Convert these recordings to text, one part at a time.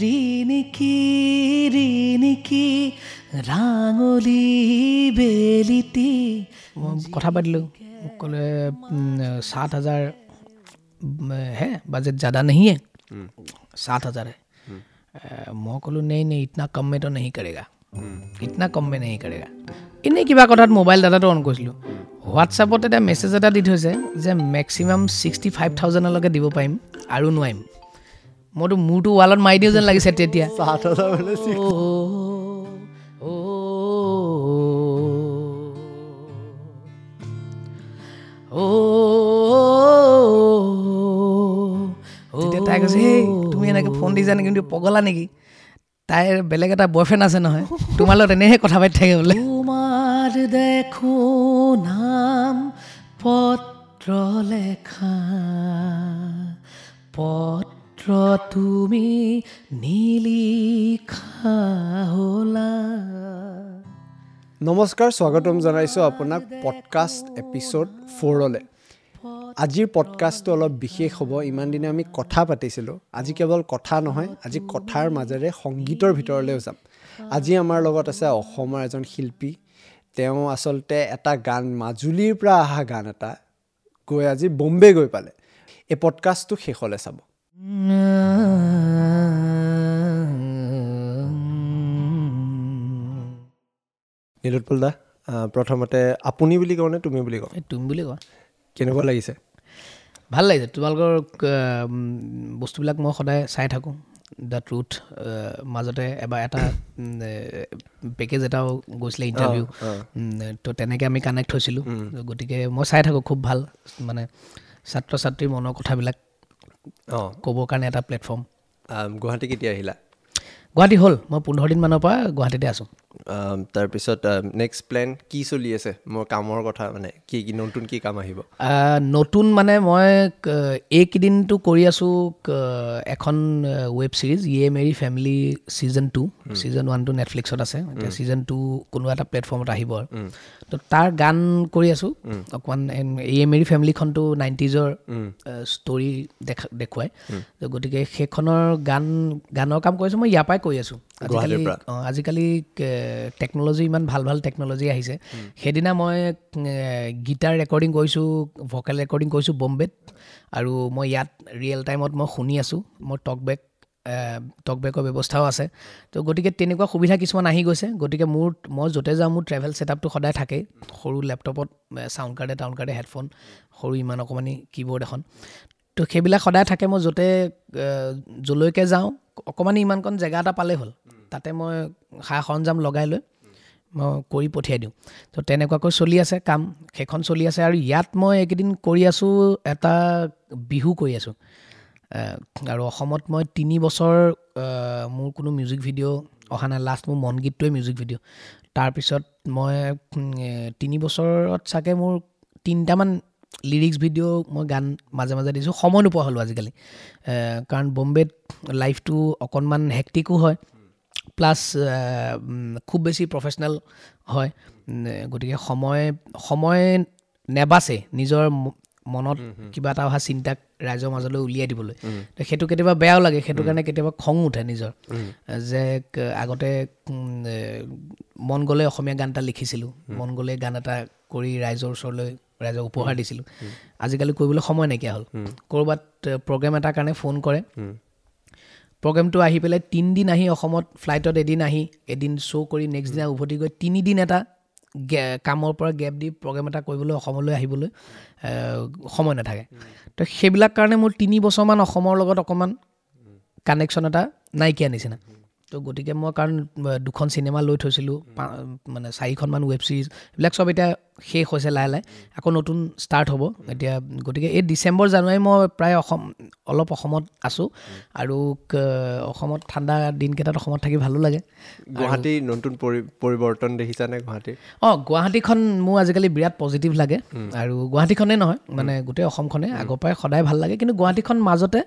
ৰিণিকি ৰিণিকি ৰাঙলী বেলিটি। মই কথা পাতিলোঁ, মোক ক'লে 7,000 হে, বাজেট জ্যাদা नहीं है, 7,000 है। মই ক'লোঁ नहीं नहीं, इतना कम में तो नहीं करेगा, इतना कम में नहीं करेगा। এনেই কিবা কথাত মোবাইল ডাটাটো অন কৰিছিলোঁ, হোৱাটছআপত এটা মেছেজ এটা দি থৈছে যে মেক্সিমাম 65,000লৈকে দিব পাৰিম আৰু নোৱাৰিম। মইতো মূৰটো ৱালত মাৰি দিওঁ যেন লাগিছে তেতিয়া। তেতিয়া তাই কৈছে, সেই তুমি এনেকৈ ফোন দিছা নেকি, কিন্তু পগলা নেকি, তাইৰ বেলেগ এটা বয়ফ্ৰেণ্ড আছে নহয়, তোমাৰ লগত এনেহে কথা পাতি থাকে বোলে। তোমাৰ দেখো নাম পত্ৰ লেখা, পত্ৰ তুমি নিলিখা হ'লা। নমস্কাৰ, স্বাগতম জনাইছোঁ আপোনাক পডকাষ্ট এপিছ'ড 4লৈ। আজিৰ পডকাষ্টটো অলপ বিশেষ হ'ব। ইমান দিনে আমি কথা পাতিছিলোঁ, আজি কেৱল কথা নহয়, আজি কথাৰ মাজেৰে সংগীতৰ ভিতৰলৈও যাম। আজি আমাৰ লগত আছে অসমৰ এজন শিল্পী। তেওঁ আচলতে এটা গান, মাজুলীৰ পৰা অহা গান এটা গৈ আজি বম্বে গৈ পালে। এই পডকাষ্টটো শেষলৈ চাব। নীলোৎপল দা, প্ৰথমতে আপুনি বুলি কওঁ নে তুমি বুলি কওঁ? তুমি বুলি কোৱা। কেনেকুৱা লাগিছে? ভাল লাগিছে। তোমালোকৰ বস্তুবিলাক মই সদায় চাই থাকোঁ। The truth মাজতে এবাৰ এটা পেকেজ এটাও গৈছিলে ইণ্টাৰভিউ, তো তেনেকৈ আমি কানেক্ট হৈছিলোঁ। গতিকে মই চাই থাকোঁ, খুব ভাল। মানে ছাত্ৰ ছাত্ৰীৰ মনৰ কথাবিলাক ক'বৰ কাৰণে এটা প্লেটফৰ্ম। গুৱাহাটী কেতিয়া আহিলা? গুৱাহাটী হ'ল মই 15 দিনমানৰ পৰা গুৱাহাটীতে আছোঁ। তাৰপিছত নেক্সট প্লেন কি চলি আছে? মোৰ কামৰ কথা, মানে কি কি নতুন কি কাম আহিব? নতুন মানে মই এইকেইদিনটো কৰি আছোঁ এখন ৱেব ছিৰিজ, য়ে মেৰী ফেমিলি ছিজন 2। ছিজন 1টো নেটফ্লিক্সত আছে, এতিয়া ছিজন 2 কোনোবা এটা প্লেটফৰ্মত আহিব আৰু। তো তাৰ গান কৰি আছোঁ অকণমান। য়ে মেৰী ফেমিলিখনটো 90s story দেখুৱায়, গতিকে সেইখনৰ গানৰ কাম কৰিছোঁ মই, ইয়াৰ পৰাই কৰি আছোঁ। আজিকালি টেকন'লজি ইমান ভাল ভাল টেকন'লজি আহিছে। সেইদিনা মই গীটাৰ ৰেকৰ্ডিং কৰিছোঁ, ভকেল ৰেকৰ্ডিং কৰিছোঁ বম্বেত, আৰু মই ইয়াত ৰিয়েল টাইমত মই শুনি আছোঁ। মোৰ টকবেকৰ ব্যৱস্থাও আছে। তো গতিকে তেনেকুৱা সুবিধা কিছুমান আহি গৈছে। গতিকে মই য'তে যাওঁ মোৰ ট্ৰেভেল ছেটআপটো সদায় থাকেই। সৰু লেপটপত চাউণ্ড কাৰ্ডে টাউণ্ড কাৰ্ডে হেডফোন, সৰু ইমান অকণমানি কীবৰ্ড এখন, তো সেইবিলাক সদায় থাকে। মই য'তে য'লৈকে যাওঁ অকণমানি ইমানকণ জেগা এটা পালেই হ'ল, তাতে মই সা সৰঞ্জাম লগাই লৈ মই কৰি পঠিয়াই দিওঁ। তো তেনেকুৱাকৈ চলি আছে কাম, সেইখন চলি আছে। আৰু ইয়াত মই এইকেইদিন কৰি আছোঁ এটা বিহু কৰি আছোঁ। আৰু অসমত মই 3 বছৰ মোৰ কোনো মিউজিক ভিডিঅ' অহা নাই। লাষ্ট মোৰ মন গীতটোৱে মিউজিক ভিডিঅ'। তাৰপিছত মই 3 বছৰত চাগে মোৰ 3টামান লিৰিক্স ভিডিঅ' মই গান মাজে মাজে দিছোঁ। সময় নোপোৱা হ'লোঁ আজিকালি, কাৰণ বম্বেত লাইফটো অকণমান হেক্টিকো হয়, প্লাছ খুব বেছি প্ৰফেচনেল হয়। গতিকে সময় নেবাচে নিজৰ মনত কিবা এটা অহা চিন্তাক ৰাইজৰ মাজলৈ উলিয়াই দিবলৈ। সেইটো কেতিয়াবা বেয়াও লাগে, সেইটো কাৰণে কেতিয়াবা খং উঠে নিজৰ, যে আগতে মন গ'লে অসমীয়া গান এটা লিখিছিলোঁ, মন গ'লে গান এটা কৰি ৰাইজৰ ওচৰলৈ ৰাইজক উপহাৰ দিছিলোঁ। আজিকালি কৰিবলৈ সময় নাইকিয়া হ'ল। ক'ৰবাত প্ৰগ্ৰেম এটাৰ কাৰণে ফোন কৰে, প্ৰগ্ৰেমটো আহি পেলাই 3 দিন আহি অসমত ফ্লাইটত এদিন আহি এদিন শ্ব' কৰি নেক্সট দিনা উভতি গৈ 3 দিন এটা কামৰ পৰা গেপ দি প্ৰগ্ৰেম এটা কৰিবলৈ অসমলৈ আহিবলৈ সময় নাথাকে। তো সেইবিলাক কাৰণে মোৰ 3 বছৰমান অসমৰ লগত অকণমান কানেকশ্যন এটা নাইকিয়া নিচিনা। তো গতিকে মই কাৰণ 2খন চিনেমা লৈ থৈছিলোঁ, মানে 4খনমান ৱেব ছিৰিজ, এইবিলাক চব এতিয়া শেষ হৈছে লাহে লাহে, আকৌ নতুন ষ্টাৰ্ট হ'ব এতিয়া। গতিকে এই ডিচেম্বৰ জানুৱাৰী মই প্ৰায় অলপ অসমত আছোঁ। আৰু অসমত ঠাণ্ডা দিনকেইটাত অসমত থাকি ভালো লাগে। গুৱাহাটীৰ নতুন পৰিৱৰ্তন দেখিছানে গুৱাহাটীৰ? অঁ, গুৱাহাটীখন মোৰ আজিকালি বিৰাট পজিটিভ লাগে। আৰু গুৱাহাটীখনেই নহয়, মানে গোটেই অসমখনে আগৰ পৰাই সদায় ভাল লাগে। কিন্তু গুৱাহাটীখন মাজতে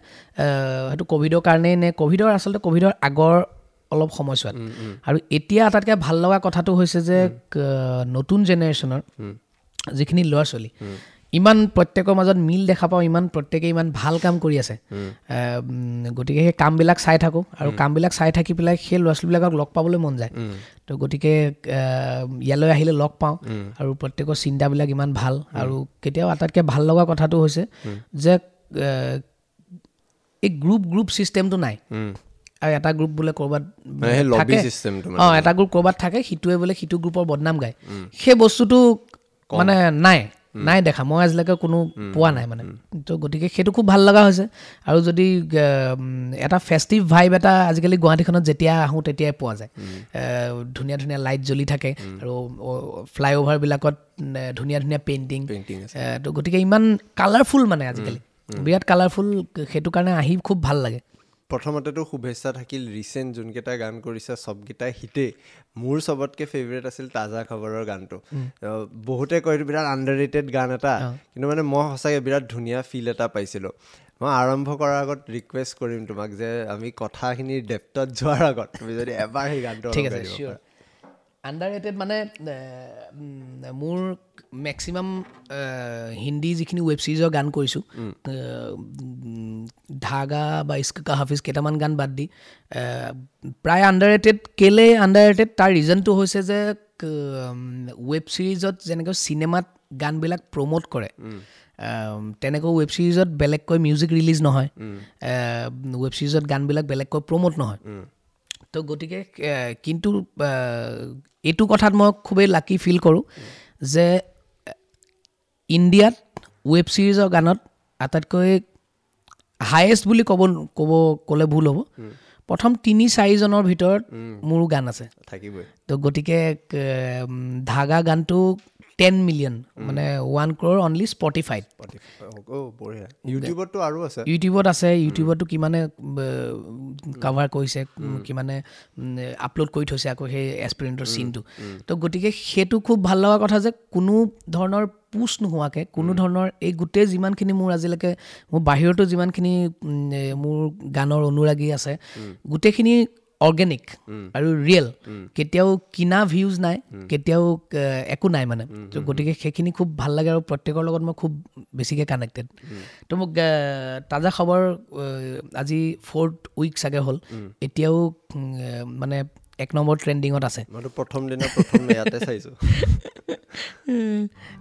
সেইটো ক'ভিডৰ কাৰণেই নে ক'ভিডৰ, আচলতে ক'ভিডৰ আগৰ অলপ সময়ছোৱাত। আৰু এতিয়া আটাইতকৈ ভাল লগা কথাটো হৈছে যে নতুন জেনেৰেশ্যনৰ যিখিনি ল'ৰা ছোৱালী ইমান প্ৰত্যেকৰ মাজত মিল দেখা পাওঁ, ইমান প্ৰত্যেকে ইমান ভাল কাম কৰি আছে। গতিকে সেই কামবিলাক চাই থাকোঁ আৰু কামবিলাক চাই থাকি পেলাই সেই ল'ৰা ছোৱালীবিলাকক লগ পাবলৈ মন যায়। তো গতিকে ইয়ালৈ আহিলে লগ পাওঁ আৰু প্ৰত্যেকৰ চিন্তাবিলাক ইমান ভাল। আৰু কেতিয়াও আটাইতকৈ ভাল লগা কথাটো হৈছে যে এই গ্ৰুপ ছিষ্টেমটো নাই। আৰু এটা গ্ৰুপ বোলে ক'ৰবাত থাকে, এটা গ্ৰুপ ক'ৰবাত থাকে, সিটোৱে বোলে সিটো গ্ৰুপৰ বদনাম গায়, সেই বস্তুটো মানে নাই দেখা, মই আজিলৈকে কোনো পোৱা নাই মানে। তো গতিকে সেইটো খুব ভাল লগা হৈছে। আৰু যদি এটা ফেষ্টিভ ভাইব এটা আজিকালি গুৱাহাটীখনত যেতিয়া আহোঁ তেতিয়াই পোৱা যায়। ধুনীয়া ধুনীয়া লাইট জ্বলি থাকে আৰু ফ্লাইঅভাৰবিলাকত ধুনীয়া ধুনীয়া পেইণ্টিং। তো গতিকে ইমান কালাৰফুল মানে আজিকালি বিৰাট কালাৰফুল, সেইটো কাৰণে আহি খুব ভাল লাগে। প্ৰথমতেতো শুভেচ্ছা থাকিল, ৰিচেণ্ট যোনকেইটা গান কৰিছে চবকেইটাই হিটেই। মোৰ চবতকৈ ফেভৰেট আছিল তাজা খবৰৰ গানটো। বহুতে কয় এইটো বিৰাট আণ্ডাৰ ৰেটেড গান এটা, কিন্তু মানে মই সঁচাকৈ বিৰাট ধুনীয়া ফিল এটা পাইছিলোঁ। মই আৰম্ভ কৰাৰ আগত ৰিকুৱেষ্ট কৰিম তোমাক যে আমি কথাখিনিৰ ডেপ্থত যোৱাৰ আগত তুমি যদি এবাৰ সেই গানটো। ঠিক আছে, চিয়'ৰ। আণ্ডাৰ ৰেটেড মানে মোৰ মেক্সিমাম হিন্দী যিখিনি ৱেব ছিৰিজৰ গান কৰিছোঁ, ধাগা বা ইস্ক কা হাফিজ কেইটামান গান বাদ দি প্ৰায় আণ্ডাৰ ৰেটেড। কেলৈ আণ্ডাৰ ৰেটেড, তাৰ ৰিজনটো হৈছে যে ৱেব ছিৰিজত যেনেকৈ চিনেমাত গানবিলাক প্ৰম'ট কৰে, তেনেকৈ ৱেব ছিৰিজত বেলেগকৈ মিউজিক ৰিলিজ নহয়, ৱেব ছিৰিজত গানবিলাক বেলেগকৈ প্ৰম'ট নহয়। তো গতিকে কিন্তু এইটো কথাত মই খুবেই লাকি ফিল কৰোঁ যে ইণ্ডিয়াত ৱেব ছিৰিজৰ গানত আটাইতকৈ হায়েষ্ট বুলি ক'লে ভুল হ'ব, প্ৰথম 3-4জনৰ ভিতৰত মোৰো গান আছে থাকিবই। তো গতিকে ধাগা গানটো 10 মিলিয়ন মানে 1 crore only স্পটিফাইত। ইউটিউবতো আৰু আছে, ইউটিউবত আছে, ইউটিউবতো কিমানে কাভাৰ কৰিছে, কিমানে আপলোড কৰি থৈছে আকৌ সেই এক্সপেৰিমেণ্টৰ চিনটো। তো গতিকে সেইটো খুব ভাল লগা কথা যে কোনো ধৰণৰ পুছ নোহোৱাকৈ, কোনো ধৰণৰ এই গোটেই যিমানখিনি মোৰ আজিলৈকে মোৰ বাহিৰতো যিমানখিনি মোৰ গানৰ অনুৰাগী আছে, গোটেইখিনি অৰ্গেনিক আৰু ৰিয়েল, কেতিয়াও কিনা ভিউজ নাই, কেতিয়াও একো নাই মানে। তো গতিকে সেইখিনি খুব ভাল লাগে আৰু প্ৰত্যেকৰ লগত মই খুব বেছিকৈ কানেক্টেড। তো মোক তাজা খবৰ আজি 4th week চাগে হ'ল, এতিয়াও মানে 1 নম্বৰ ট্ৰেণ্ডিঙত আছে। মইতো প্ৰথম দিনা প্ৰথম ইয়াতে চাইছোঁ।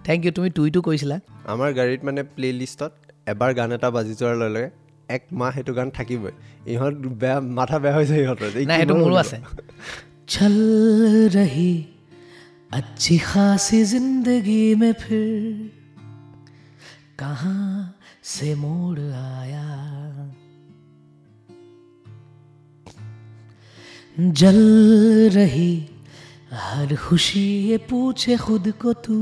Thank U. তুমি টুইটো কৰিছিলা। আমাৰ গাড়ীত মানে প্লে লিষ্টত এবাৰ গান এটা বাজি যোৱাৰ লগে লগে এক মাহ সেইটো গান থাকিবই। ইহঁত বেয়া, মাথা বেয়া হৈ যায় ইহঁতৰ। নাই, সেইটো মোৰো আছে। চল ৰহি अच्छी खासी जिंदगी में फिर कहाँ से मोड़ आया, जल रही हर खुशी ये पूछे खुद को तू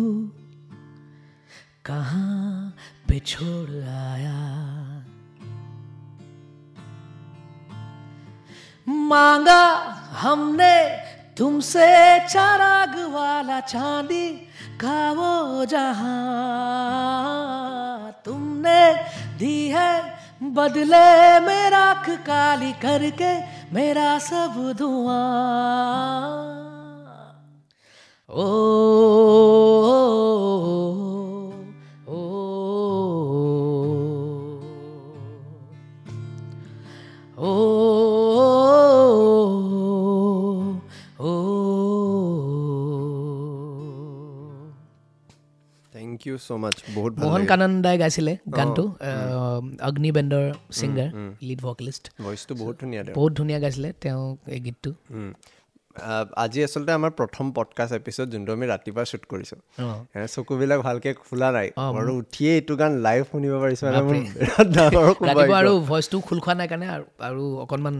कहाँ पे छोड़ आया, मांगा हमने तुमसे चराग वाला चांदी का वो जहां, तुमने दी है बदले में राख काली करके मेरा सब धुआं। ओ ओ ओ ओ। Thank you so মাচ্চ, বহুত ভাল। মোহন কানন দাই গাইছিলে গানটো, অগ্নি বেণ্ডৰ ছিংগাৰ, লিড ভকেলিষ্ট। ভইচটো বহুত ধুনীয়া, বহুত ধুনীয়া গাইছিলে তেওঁ এই গীতটো। আজি আচলতে আমাৰ প্ৰথম পডকাষ্ট এপিছ'ড যোনটো আমি ৰাতিপুৱা শ্বুট কৰিছোঁ, চকুবিলাক ভালকৈ খোলা নাই আৰু উঠিয়ে এইটো গান লাইভ শুনিব পাৰিছোঁ। ৰাতিপুৱা আৰু ভইচটো খোল খোৱা নাই কাৰণে আৰু অকণমান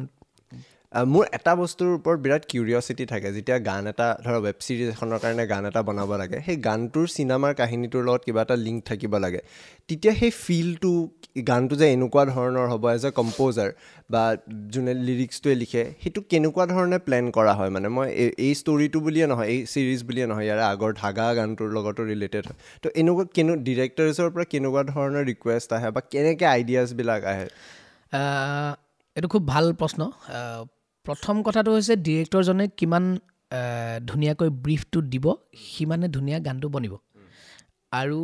মোৰ এটা বস্তুৰ ওপৰত বিৰাট কিউৰিয়চিটি থাকে, যেতিয়া গান এটা ধৰা ৱেব ছিৰিজ এখনৰ কাৰণে গান এটা বনাব লাগে, সেই গানটোৰ চিনেমাৰ কাহিনীটোৰ লগত কিবা এটা লিংক থাকিব লাগে, তেতিয়া সেই ফিলটো গানটো যে এনেকুৱা ধৰণৰ হ'ব এজ এ কম্প'জাৰ বা যোনে লিৰিক্সটোৱে লিখে, সেইটো কেনেকুৱা ধৰণে প্লেন কৰা হয়? মানে মই এই ষ্টৰিটো বুলিয়ে নহয়, এই ছিৰিজ বুলিয়ে নহয়, ইয়াৰে আগৰ ধাগা গানটোৰ লগতো ৰিলেটেড হয়। তো এনেকুৱা ডিৰেক্টৰ্ছৰ পৰা কেনেকুৱা ধৰণৰ ৰিকুৱেষ্ট আহে বা কেনেকৈ আইডিয়াছবিলাক আহে? এইটো খুব ভাল প্ৰশ্ন। প্ৰথম কথাটো হৈছে ডিৰেক্টৰজনে কিমান ধুনীয়াকৈ ব্ৰিফটো দিব, সিমানে ধুনীয়া গানটো বনিব। আৰু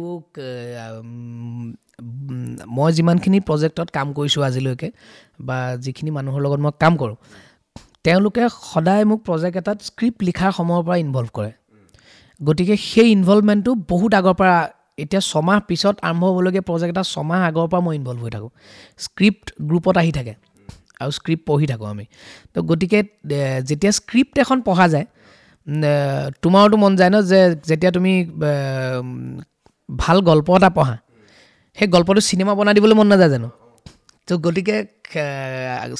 মই যিমানখিনি প্ৰজেক্টত কাম কৰিছোঁ আজিলৈকে বা যিখিনি মানুহৰ লগত মই কাম কৰোঁ, তেওঁলোকে সদায় মোক প্ৰজেক্ট এটাত স্ক্ৰিপ্ট লিখাৰ সময়ৰ পৰা ইনভল্ভ কৰে। গতিকে সেই ইনভলভমেণ্টটো বহুত আগৰ পৰা, এতিয়া ছমাহ পিছত আৰম্ভ হ'বলগীয়া প্ৰজেক্ট এটা ছমাহ আগৰ পৰা মই ইনভল্ভ হৈ থাকোঁ। স্ক্ৰিপ্ট গ্ৰুপত আহি থাকে আৰু স্ক্ৰিপ্ট পঢ়ি থাকোঁ আমি। তো গতিকে যেতিয়া স্ক্ৰিপ্ট এখন পঢ়া যায়, তোমাৰোতো মন যায় ন যে যেতিয়া তুমি ভাল গল্প এটা পঢ়া, সেই গল্পটো চিনেমা বনাই দিবলৈ মন নাযায় জানো? তো গতিকে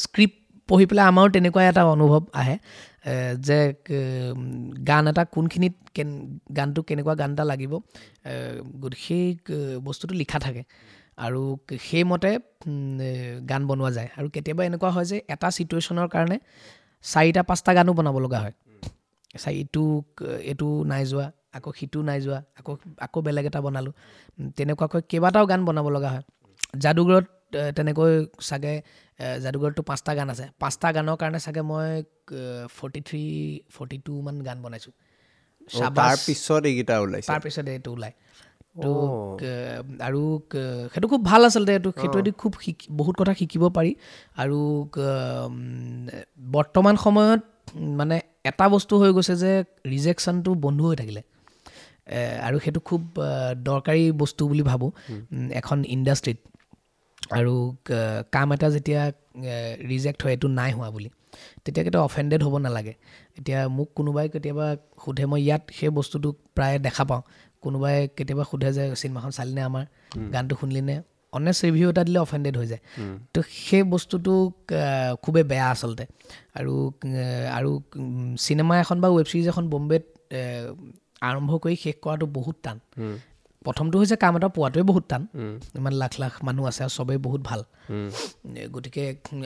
স্ক্ৰিপ্ট পঢ়ি পেলাই আমাৰো তেনেকুৱা এটা অনুভৱ আহে যে গান এটা কোনখিনিত গানটো কেনেকুৱা গান এটা লাগিব, সেই বস্তুটো লিখা থাকে আৰু সেইমতে গান বনোৱা যায়। আৰু কেতিয়াবা এনেকুৱা হয় যে এটা ছিটুৱেশ্যনৰ কাৰণে 4-5টা গানো বনাব লগা হয়। ইটো এইটো নাই যোৱা, আকৌ সিটো নাই যোৱা, আকৌ বেলেগ এটা বনালোঁ, তেনেকুৱাকৈ কেইবাটাও গান বনাব লগা হয়। যাদুঘৰত তেনেকৈ চাগে, যাদুঘৰততো 5টা গান আছে, 5টা গানৰ কাৰণে চাগে মই 43, 42 মান গান বনাইছোঁ। তাৰপিছত এইকেইটা ওলাইছে, তাৰপিছত এইটো ওলায়। তো আৰু সেইটো খুব ভাল আচলতে, এইটো সেইটোৱেদি খুব বহুত কথা শিকিব পাৰি। আৰু বৰ্তমান সময়ত মানে এটা বস্তু হৈ গৈছে যে ৰিজেকশ্যনটো বন্ধ হৈ থাকিলে, আৰু সেইটো খুব দৰকাৰী বস্তু বুলি ভাবোঁ এখন ইণ্ডাষ্ট্ৰীত। আৰু কাম এটা যেতিয়া ৰিজেক্ট হয়, এইটো নাই হোৱা বুলি, তেতিয়া কেতিয়াও অফেণ্ডেড হ'ব নালাগে। এতিয়া মোক কোনোবাই কেতিয়াবা সোধে, মই ইয়াত সেই বস্তুটো প্ৰায় দেখা পাওঁ, কোনোবাই কেতিয়াবা সোধে যে চিনেমাখন চালিনে, আমাৰ গানটো শুনিলিনে, অনেষ্ট ৰিভিউ এটা দিলে অফেণ্ডেড হৈ যায়। তো সেই বস্তুটো খুবেই বেয়া আচলতে। আৰু আৰু চিনেমা এখন বা ৱেব ছিৰিজ এখন বম্বেত আৰম্ভ কৰি শেষ কৰাটো বহুত টান। প্ৰথমটো হৈছে কাম এটা পোৱাটোৱে বহুত টান, ইমান লাখ লাখ মানুহ আছে আৰু চবেই বহুত ভাল। গতিকে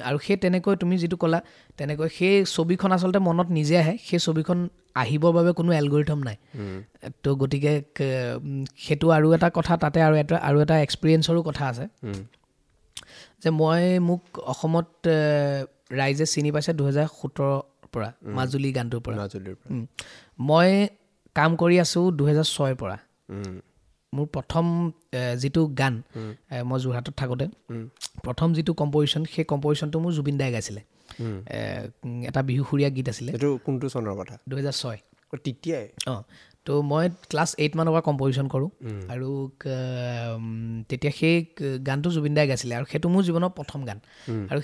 আৰু সেই তেনেকৈ তুমি যিটো ক'লা, তেনেকৈ সেই ছবিখন আচলতে মনত নিজে আহে, সেই ছবিখন আহিবৰ বাবে কোনো এলগৰিথম নাই। তো গতিকে সেইটো আৰু এটা কথা, তাতে আৰু এটা এক্সপিৰিয়েঞ্চৰো কথা আছে যে মোক অসমত ৰাইজে চিনি পাইছে 2017 পৰা, মাজুলী গানটোৰ পৰা। মই কাম কৰি আছোঁ 2006 পৰা। মোৰ প্ৰথম যিটো গান, মই যোৰহাটত থাকোঁতে প্ৰথম যিটো কম্পজিশ্যন, সেই কম্পজিশ্যনটো মোৰ জুবিন দাই গাইছিলে। এটা বিহুসুৰীয়া গীত আছিলে। এইটো কোনটো চনৰ কথা? 2006। তেতিয়াই? অঁ, তো মই ক্লাছ 8 মানৰ পৰা কম্পজিশ্যন কৰোঁ আৰু তেতিয়া সেই গানটো জুবিন দাই গাইছিলে আৰু সেইটো মোৰ জীৱনৰ প্ৰথম গান। আৰু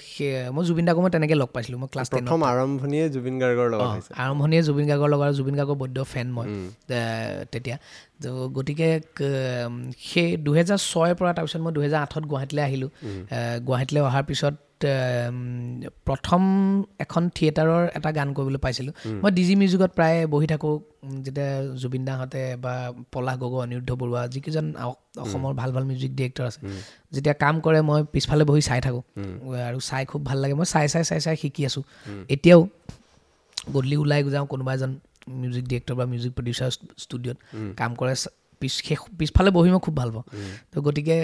মই জুবিন দাকো মই তেনেকৈ লগ পাইছিলোঁ। মই ক্লাছ 10 প্ৰথম আৰম্ভণিয়ে জুবিন গাৰ্গৰ লগত হৈছে। আৰম্ভণিয়ে জুবিন গাৰ্গৰ লগত, জুবিন গাৰ্গৰ বৈদ্য ফেন মই তেতিয়া। তো গতিকে সেই 2006 পৰা তাৰপিছত মই 2008 গুৱাহাটীলৈ আহিলোঁ। গুৱাহাটীলৈ অহাৰ পিছত প্ৰথম এখন থিয়েটাৰৰ এটা গান কৰিবলৈ পাইছিলোঁ। মই ডি জি মিউজিকত প্ৰায় বহি থাকোঁ, যেতিয়া জুবিন দাহঁতে বা পলাশ গগৈ, অনিৰুদ্ধ বৰুৱা, যিকেইজন অসমৰ ভাল ভাল মিউজিক ডিৰেক্টৰ আছে, যেতিয়া কাম কৰে মই পিছফালে বহি চাই থাকোঁ আৰু চাই খুব ভাল লাগে। মই চাই চাই চাই চাই শিকি আছোঁ। এতিয়াও গধূলি ওলাই যাওঁ, কোনোবা এজন মিউজিক ডিৰেক্টৰ বা মিউজিক প্ৰডিউচাৰ ষ্টুডিঅ'ত কাম কৰে, পিছফালে বহি মই খুব ভাল পাওঁ। তো গতিকে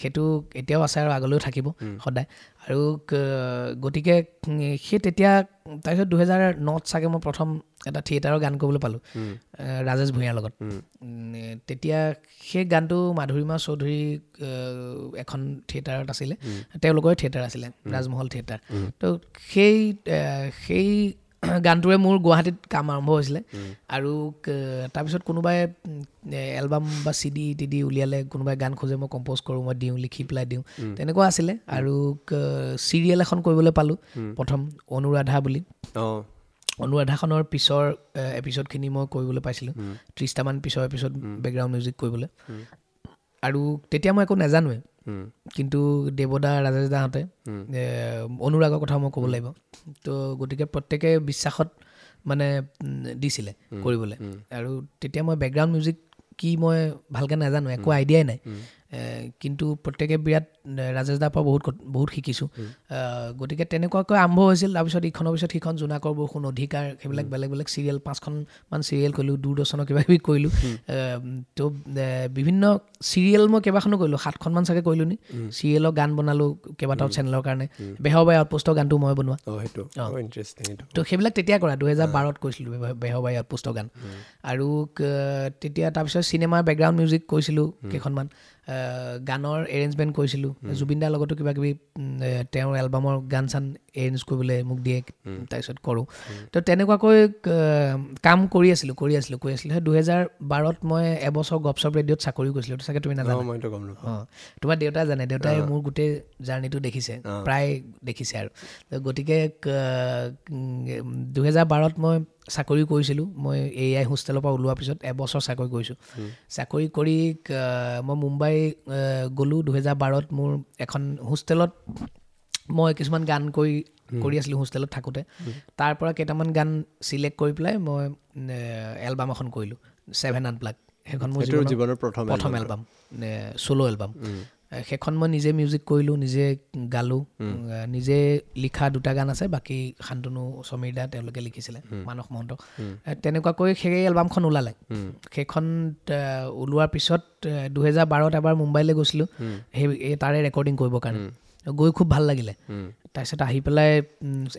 সেইটো এতিয়াও আছে আৰু আগলৈও থাকিব সদায়। আৰু গতিকে সেই তেতিয়া তাৰপিছত 2009 চাগে মই প্ৰথম এটা থিয়েটাৰৰ গান কৰিবলৈ পালোঁ ৰাজেশ ভূঞাৰ লগত। তেতিয়া সেই গানটো মাধুৰীমা চৌধুৰী এখন থিয়েটাৰত আছিলে, তেওঁলোকৰে থিয়েটাৰ আছিলে, ৰাজমহল থিয়েটাৰ। তো সেই গানটোৰে মোৰ গুৱাহাটীত কাম আৰম্ভ হৈছিলে। আৰু তাৰপিছত কোনোবাই এলবাম বা চি ডি টি ডি উলিয়ালে, কোনোবাই গান খোজে, মই কম্প'জ কৰোঁ, মই দিওঁ, লিখি পেলাই দিওঁ, তেনেকুৱা আছিলে। আৰু চিৰিয়েল এখন কৰিবলৈ পালোঁ প্ৰথম, অনুৰাধা বুলি। অনুৰাধাখনৰ পিছৰ এপিছ'ডখিনি মই কৰিবলৈ পাইছিলোঁ, 30টামান পিছৰ এপিছ'ড বেকগ্ৰাউণ্ড মিউজিক কৰিবলৈ। আৰু তেতিয়া মই একো নাজানোৱে, কিন্তু দেৱদা, ৰাজেশ দাহঁতে, অনুৰাগৰ কথা মই ক'ব লাগিব, তো গতিকে প্ৰত্যেকে বিশ্বাসত মানে দিছিলে কৰিবলৈ। আৰু তেতিয়া মই বেকগ্ৰাউণ্ড মিউজিক কি মই ভালকৈ নাজানো, একো আইডিয়াই নাই। কিন্তু প্ৰত্যেকে বিৰাট ৰাজেশ দাৰ পৰা বহুত বহুত শিকিছোঁ। গতিকে তেনেকুৱাকৈ আৰম্ভ হৈছিল। তাৰপিছত ইখনৰ পিছত সিখন জোনাকৰ বৰষুণ, অধিকাৰ, সেইবিলাক বেলেগ বেলেগ চিৰিয়েল 5খনমান চিৰিয়েল কৰিলোঁ, দূৰদৰ্শনৰ কিবা কিবি কৰিলোঁ। তো বিভিন্ন চিৰিয়েল মই কেইবাখনো কৰিলোঁ, 7খনমান চাগে কৰিলোঁ নি। চিৰিয়েলৰ গান বনালোঁ কেইবাটাও চেনেলৰ কাৰণে। বেহৰবাৰী আউটপোষ্টৰ গানটো মই বনোৱা। তো সেইবিলাক তেতিয়া কৰা 2012ত কৰিছিলোঁ বেহৰবাৰী আউটপোষ্টৰ গান। আৰু তেতিয়া তাৰপিছত চিনেমাৰ বেকগ্ৰাউণ্ড মিউজিক কৰিছিলোঁ কেইখনমান, গানৰ এৰেঞ্জমেণ্ট কৰিছিলোঁ। জুবিন দাৰ লগতো কিবা কিবি তেওঁৰ এলবামৰ গান চান এৰেঞ্জ কৰিবলৈ মোক দিয়ে, তাৰপিছত কৰোঁ। তো তেনেকুৱাকৈ কাম কৰি আছিলোঁ। সেই 2012ত মই এবছৰ গপচপ ৰেডিঅ'ত চাকৰি কৰিছিলোঁ। চাগে তুমি নাজানা? অঁ, তোমাৰ দেউতাই জানে, দেউতাই মোৰ গোটেই জাৰ্ণিটো দেখিছে, প্ৰায় দেখিছে আৰু। গতিকে 2012ত মই চাকৰি কৰিছিলোঁ। মই এ I হোষ্টেলৰ পৰা ওলোৱাৰ পিছত এবছৰ চাকৰি কৰিছোঁ। চাকৰি কৰি মই মুম্বাই গ'লোঁ 2012ত। মোৰ এখন হোষ্টেলত মই কিছুমান গান কৰি আছিলোঁ হোষ্টেলত থাকোঁতে। তাৰ পৰা কেইটামান গান চিলেক্ট কৰি পেলাই মই এলবাম এখন কৰিলোঁ, 7 আনপ্লাগ। সেইখন মোৰ জীৱনৰ প্ৰথম এলবাম, চ'ল' এলবাম। সেইখন মই নিজে মিউজিক কৰিলোঁ, নিজে গালোঁ, নিজে লিখা 2টা গান আছে, বাকী শান্তনু সমীৰ দা তেওঁলোকে লিখিছিলে, মানস মহন্ত। তেনেকুৱাকৈ সেই এলবামখন ওলালে। সেইখন ওলোৱাৰ পিছত 2012ত এবাৰ মুম্বাইলৈ গৈছিলোঁ, সেই তাৰে ৰেকৰ্ডিং কৰিবৰ কাৰণে। গৈ খুব ভাল লাগিলে। তাৰপিছত আহি পেলাই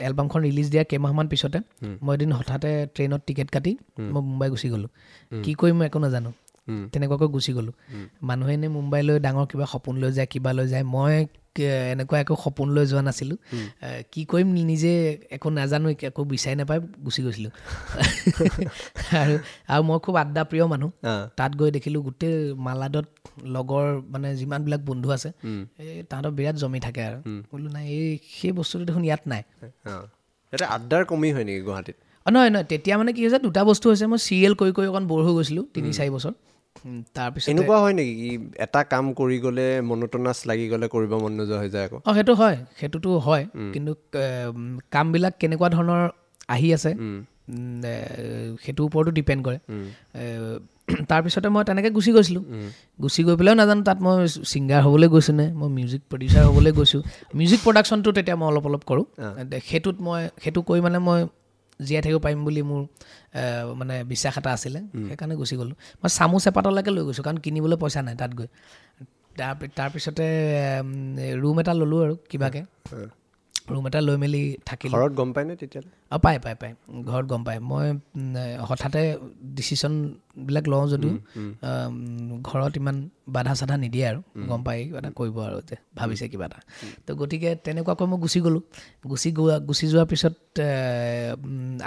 এলবামখন ৰিলিজ দিয়াৰ কেইমাহমান পিছতে মই এদিন হঠাতে ট্ৰেইনত টিকেট কাটি মই মুম্বাই গুচি গ'লোঁ। কি কৰিম মই একো নাজানো, তেনেকুৱাকৈ গুচি গ'লোঁ। মানুহে এনেই মুম্বাইলৈ ডাঙৰ কিবা সপোন লৈ যায়, কিবা লৈ যায়। মই এনেকুৱা একো সপোন লৈ যোৱা নাছিলোঁ। কি কৰিম নিজে একো নাজানো, একো বিচাৰি নাপাই গুচি গৈছিলোঁ। আৰু আৰু মই খুব আড্ডা প্ৰিয় মানুহ। তাত গৈ দেখিলোঁ গোটেই মালাডত লগৰ মানে যিমানবিলাক বন্ধু আছে, এই তাহাঁতৰ বিৰাট জমি থাকে। আৰু বোলো নাই, এই সেই বস্তুটো দেখোন ইয়াত নাই। আড্ডাৰ কমি হয় নেকি গুৱাহাটীত? নহয় নহয়, তেতিয়া মানে কি হৈছে, 2টা বস্তু হৈছে। মই চিৰিয়েল কৰি কৰি অকণ ব'ৰ হৈ গৈছিলোঁ 3-4 বছৰ। তাৰপিছত এনেকুৱা হয় নেকি কি এটা কাম কৰি গ'লে মনোটনাছ লাগি গ'লে কৰিব মন নোযোৱা হৈ যায় আকৌ? অঁ, সেইটো হয়, সেইটোতো হয়। কিন্তু কামবিলাক কেনেকুৱা ধৰণৰ আহি আছে সেইটোৰ ওপৰতো ডিপেণ্ড কৰে। তাৰপিছতে মই তেনেকৈ গুচি গৈছিলোঁ। গুচি গৈ পেলাইও নাজানো তাত মই ছিংগাৰ হ'বলৈ গৈছোঁ নে মই মিউজিক প্ৰডিউচাৰ হ'বলৈ গৈছোঁ। মিউজিক প্ৰডাকশ্যনটো তেতিয়া মই অলপ অলপ কৰোঁ। সেইটোত মই সেইটো কৰি মানে মই জীয়াই থাকিব পাৰিম বুলি মোৰ মানে বিশ্বাস এটা আছিলে, সেইকাৰণে গুচি গ'লোঁ। মই চামুচ এপাতলৈকে লৈ গৈছোঁ, কাৰণ কিনিবলৈ পইচা নাই তাত গৈ। তাৰপিছতে ৰুম এটা ল'লোঁ আৰু কিবাকৈ ৰুম এটা লৈ মেলি থাকিলোঁ। ঘৰত গম পায়নে তেতিয়াহ'লে? অঁ, পায় পায় পায়, ঘৰত গম পায়। মই হঠাতে ডিচিশ্যনবিলাক লওঁ যদিও ঘৰত ইমান বাধা চাধা নিদিয়ে আৰু, গম পায় কিবা এটা কৰিব আৰু যে ভাবিছে কিবা এটা। তো গতিকে তেনেকুৱাকৈ মই গুচি গ'লোঁ। গুচি যোৱাৰ পিছত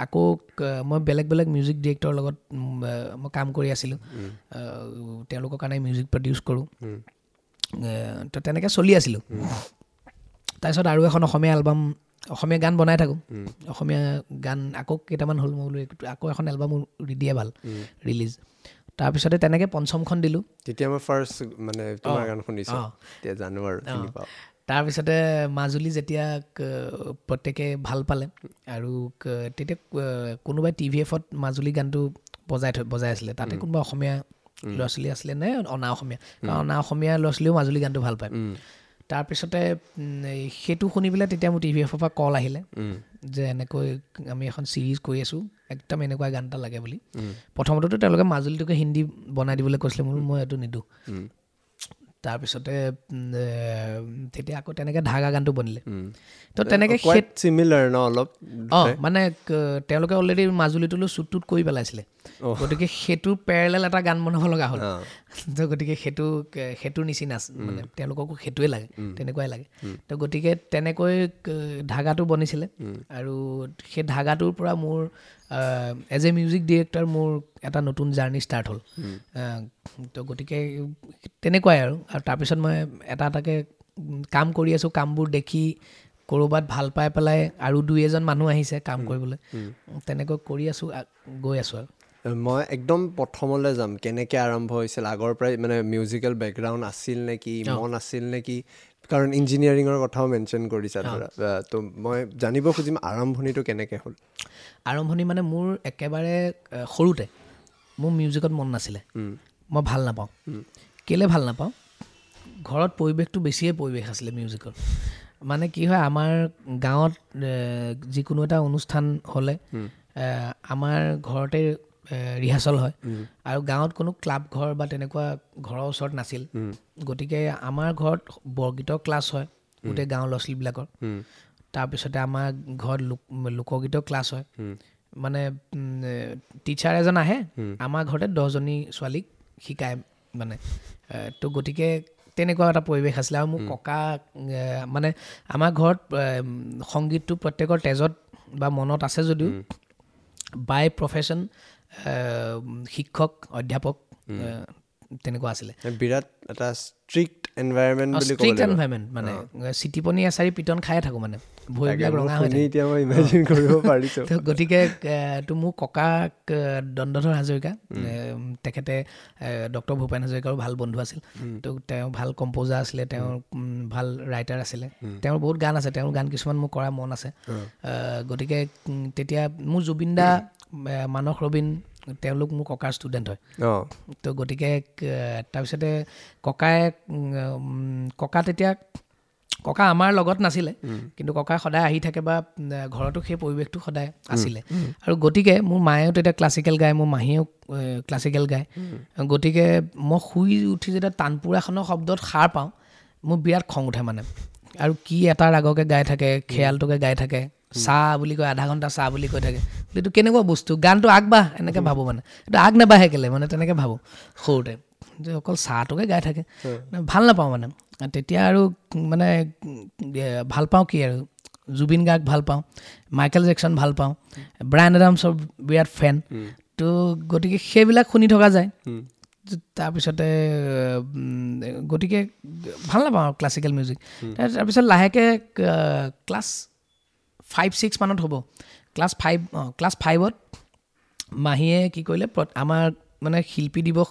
আকৌ মই বেলেগ বেলেগ মিউজিক ডিৰেক্টৰৰ লগত মই কাম কৰি আছিলোঁ, তেওঁলোকৰ কাৰণে মিউজিক প্ৰডিউচ কৰোঁ। তো তেনেকৈ চলি আছিলোঁ। তাৰপিছত আৰু এখন অসমীয়া এলবাম, অসমীয়া গান বনাই থাকোঁ, অসমীয়া গান আকৌ কেইটামান হ'ল, মই বোলো আকৌ এখন এলবাম দিয়ে ভাল ৰিলিজ। তাৰপিছতে তেনেকৈ পঞ্চমখন দিলোঁ। তেতিয়া মই ফাৰ্ষ্ট মানে তোমাৰ গান শুনিছোঁ, তেতিয়া জানো আৰু চিনি পাওঁ। তাৰপিছতে মাজুলী যেতিয়া প্ৰত্যেকে ভাল পালে আৰু তেতিয়া কোনোবাই টি ভি এফত মাজুলী গানটো বজাই আছিলে, তাতে কোনোবা অসমীয়া ল'ৰা ছোৱালী আছিলে নে অনা অসমীয়া, কাৰণ অনা অসমীয়া ল'ৰা ছোৱালীও মাজুলী গানটো ভাল পায়। তাৰপিছতে সেইটো শুনি পেলাই তেতিয়া মোৰ টি ভি এফৰ পৰা কল আহিলে যে এনেকৈ আমি এখন ছিৰিজ কৰি আছোঁ, একদম এনেকুৱা গান এটা লাগে বুলি। প্ৰথমতেতো তেওঁলোকে মাজুলীটোকে হিন্দী বনাই দিবলৈ কৈছিলে, মোৰ মই এইটো নিদিওঁ। তাৰপিছতে তেতিয়া আকৌ তেনেকৈ ধাগা গানটো বনিলে। তো তেনেকৈ চিমিলাৰ ন অলপ, অঁ মানে তেওঁলোকে অলৰেডি মাজুলীটোলৈ শ্বুট টুট কৰি পেলাইছিলে, গতিকে সেইটোৰ পেৰেলেল এটা গান বনাব লগা হ'ল। তো গতিকে সেইটোৰ নিচিনা মানে তেওঁলোককো সেইটোৱে লাগে, তেনেকুৱাই লাগে। তো গতিকে তেনেকৈ ধাগাটো বনিছিলে আৰু সেই ধাগাটোৰ পৰা মোৰ এজ এ মিউজিক ডিৰেক্টৰ মোৰ এটা নতুন জাৰ্ণি ষ্টাৰ্ট হ'ল। তো গতিকে তেনেকুৱাই আৰু তাৰপিছত মই এটা এটাকৈ কাম কৰি আছোঁ, কামবোৰ দেখি ক'ৰবাত ভাল পাই পেলাই আৰু দুই এজন মানুহ আহিছে কাম কৰিবলৈ, তেনেকৈ কৰি আছোঁ, গৈ আছোঁ। আৰু মই একদম প্ৰথমলৈ যাম, কেনেকৈ আৰম্ভ হৈছিল, আগৰ পৰাই মানে মিউজিকেল বেকগ্ৰাউণ্ড আছিল নেকি, মন আছিল নেকি, কাৰণ ইঞ্জিনিয়াৰিঙৰ কথাও মেনশ্যন কৰিছা ধৰা, তো মই জানিব খুজিম আৰম্ভণিটো কেনেকৈ হ'ল? আৰম্ভণি মানে মোৰ একেবাৰে সৰুতে মোৰ মিউজিকত মন নাছিলে, মই ভাল নাপাওঁ। কেলৈ ভাল নাপাওঁ? ঘৰত পৰিৱেশটো বেছিয়ে পৰিৱেশ আছিলে মিউজিকৰ। মানে কি হয়, আমাৰ গাঁৱত যিকোনো এটা অনুষ্ঠান হ'লে আমাৰ ঘৰতে ৰিহাৰ্চেল হয়, আৰু গাঁৱত কোনো ক্লাব ঘৰ বা তেনেকুৱা ঘৰৰ ওচৰত নাছিল। গতিকে আমাৰ ঘৰত বৰগীতৰ ক্লাছ হয় গোটেই গাঁৱৰ ল'ৰা ছোৱালীবিলাকৰ। তাৰপিছতে আমাৰ ঘৰত লোকগীতৰ ক্লাছ হয়। মানে টিচাৰ এজন আহে, আমাৰ ঘৰতে 10জনী ছোৱালীক শিকায় মানে। তো গতিকে তেনেকুৱা এটা পৰিৱেশ আছিলে। আৰু মোৰ ককা মানে আমাৰ ঘৰত সংগীতটো প্ৰত্যেকৰ তেজত বা মনত আছে যদিও বাই প্ৰফেশ্যন শিক্ষক অধ্যাপক তেনেকুৱা আছিলে। বিৰাট এটা ষ্ট্ৰিক্ট এনভাইৰনমেণ্ট বুলি ক'ব লাগিব। ষ্ট্ৰিক্ট এনভাইৰনমেণ্ট মানে চিটিপনি এচাৰি পিটন খায়ে থাকোঁ মানে, ভৰিবিলাক ৰঙা হৈ থাকে। এতিয়া মই ইমেজিন কৰিব পাৰিছোঁ। তো গতিকে তো মোৰ ককাক দণ্ডধৰ হাজৰিকা, তেখেতে ডক্টৰ ভূপেন হাজৰিকাৰো ভাল বন্ধু আছিল। তো তেওঁ ভাল কম্প'জাৰ আছিলে, তেওঁ ভাল ৰাইটাৰ আছিলে, তেওঁৰ বহুত গান আছে, তেওঁৰ গান কিছুমান মোৰ কৰা মন আছে। গতিকে তেতিয়া মোৰ জুবিন দা, মানস ৰবীন, তেওঁলোক মোৰ ককাৰ ষ্টুডেণ্ট হয়। তো গতিকে তাৰপিছতে ককা তেতিয়া ককা আমাৰ লগত নাছিলে, কিন্তু ককা সদায় আহি থাকে বা ঘৰতো সেই পৰিৱেশটো সদায় আছিলে। আৰু গতিকে মোৰ মায়েও তেতিয়া ক্লাছিকেল গায়, মোৰ মাহীয়েও ক্লাছিকেল গায়। গতিকে মই শুই উঠি যেতিয়া তানপুৰাখনৰ শব্দত সাৰ পাওঁ, মোৰ বিৰাট খং উঠে মানে। আৰু কি এটা ৰাগকে গাই থাকে, খেয়ালটোকে গাই থাকে, চাহ বুলি কয়, আধা ঘণ্টা চাহ বুলি কৈ থাকে। এইটো কেনেকুৱা বস্তু, গানটো আগবাঢ় এনেকৈ ভাবোঁ মানে, এইটো আগ নাবাঢ়ে কেলৈ মানে, তেনেকৈ ভাবোঁ সৰুতে, যে অকল চাহটোকে গাই থাকে, ভাল নাপাওঁ মানে। তেতিয়া আৰু মানে ভাল পাওঁ কি আৰু, জুবিন গাৰ্গ ভাল পাওঁ, মাইকেল জেকচন ভাল পাওঁ, ব্ৰায়ান এডামছৰ বিৰাট ফেন। তো গতিকে সেইবিলাক শুনি থকা যায়। তাৰপিছতে গতিকে ভাল নাপাওঁ আৰু ক্লাছিকেল মিউজিক। তাৰপিছত লাহেকৈ ক্লাছ 5-6 মানত হ'ব, ক্লাছ 5ত মাহীয়ে কি কৰিলে, আমাৰ মানে শিল্পী দিৱস,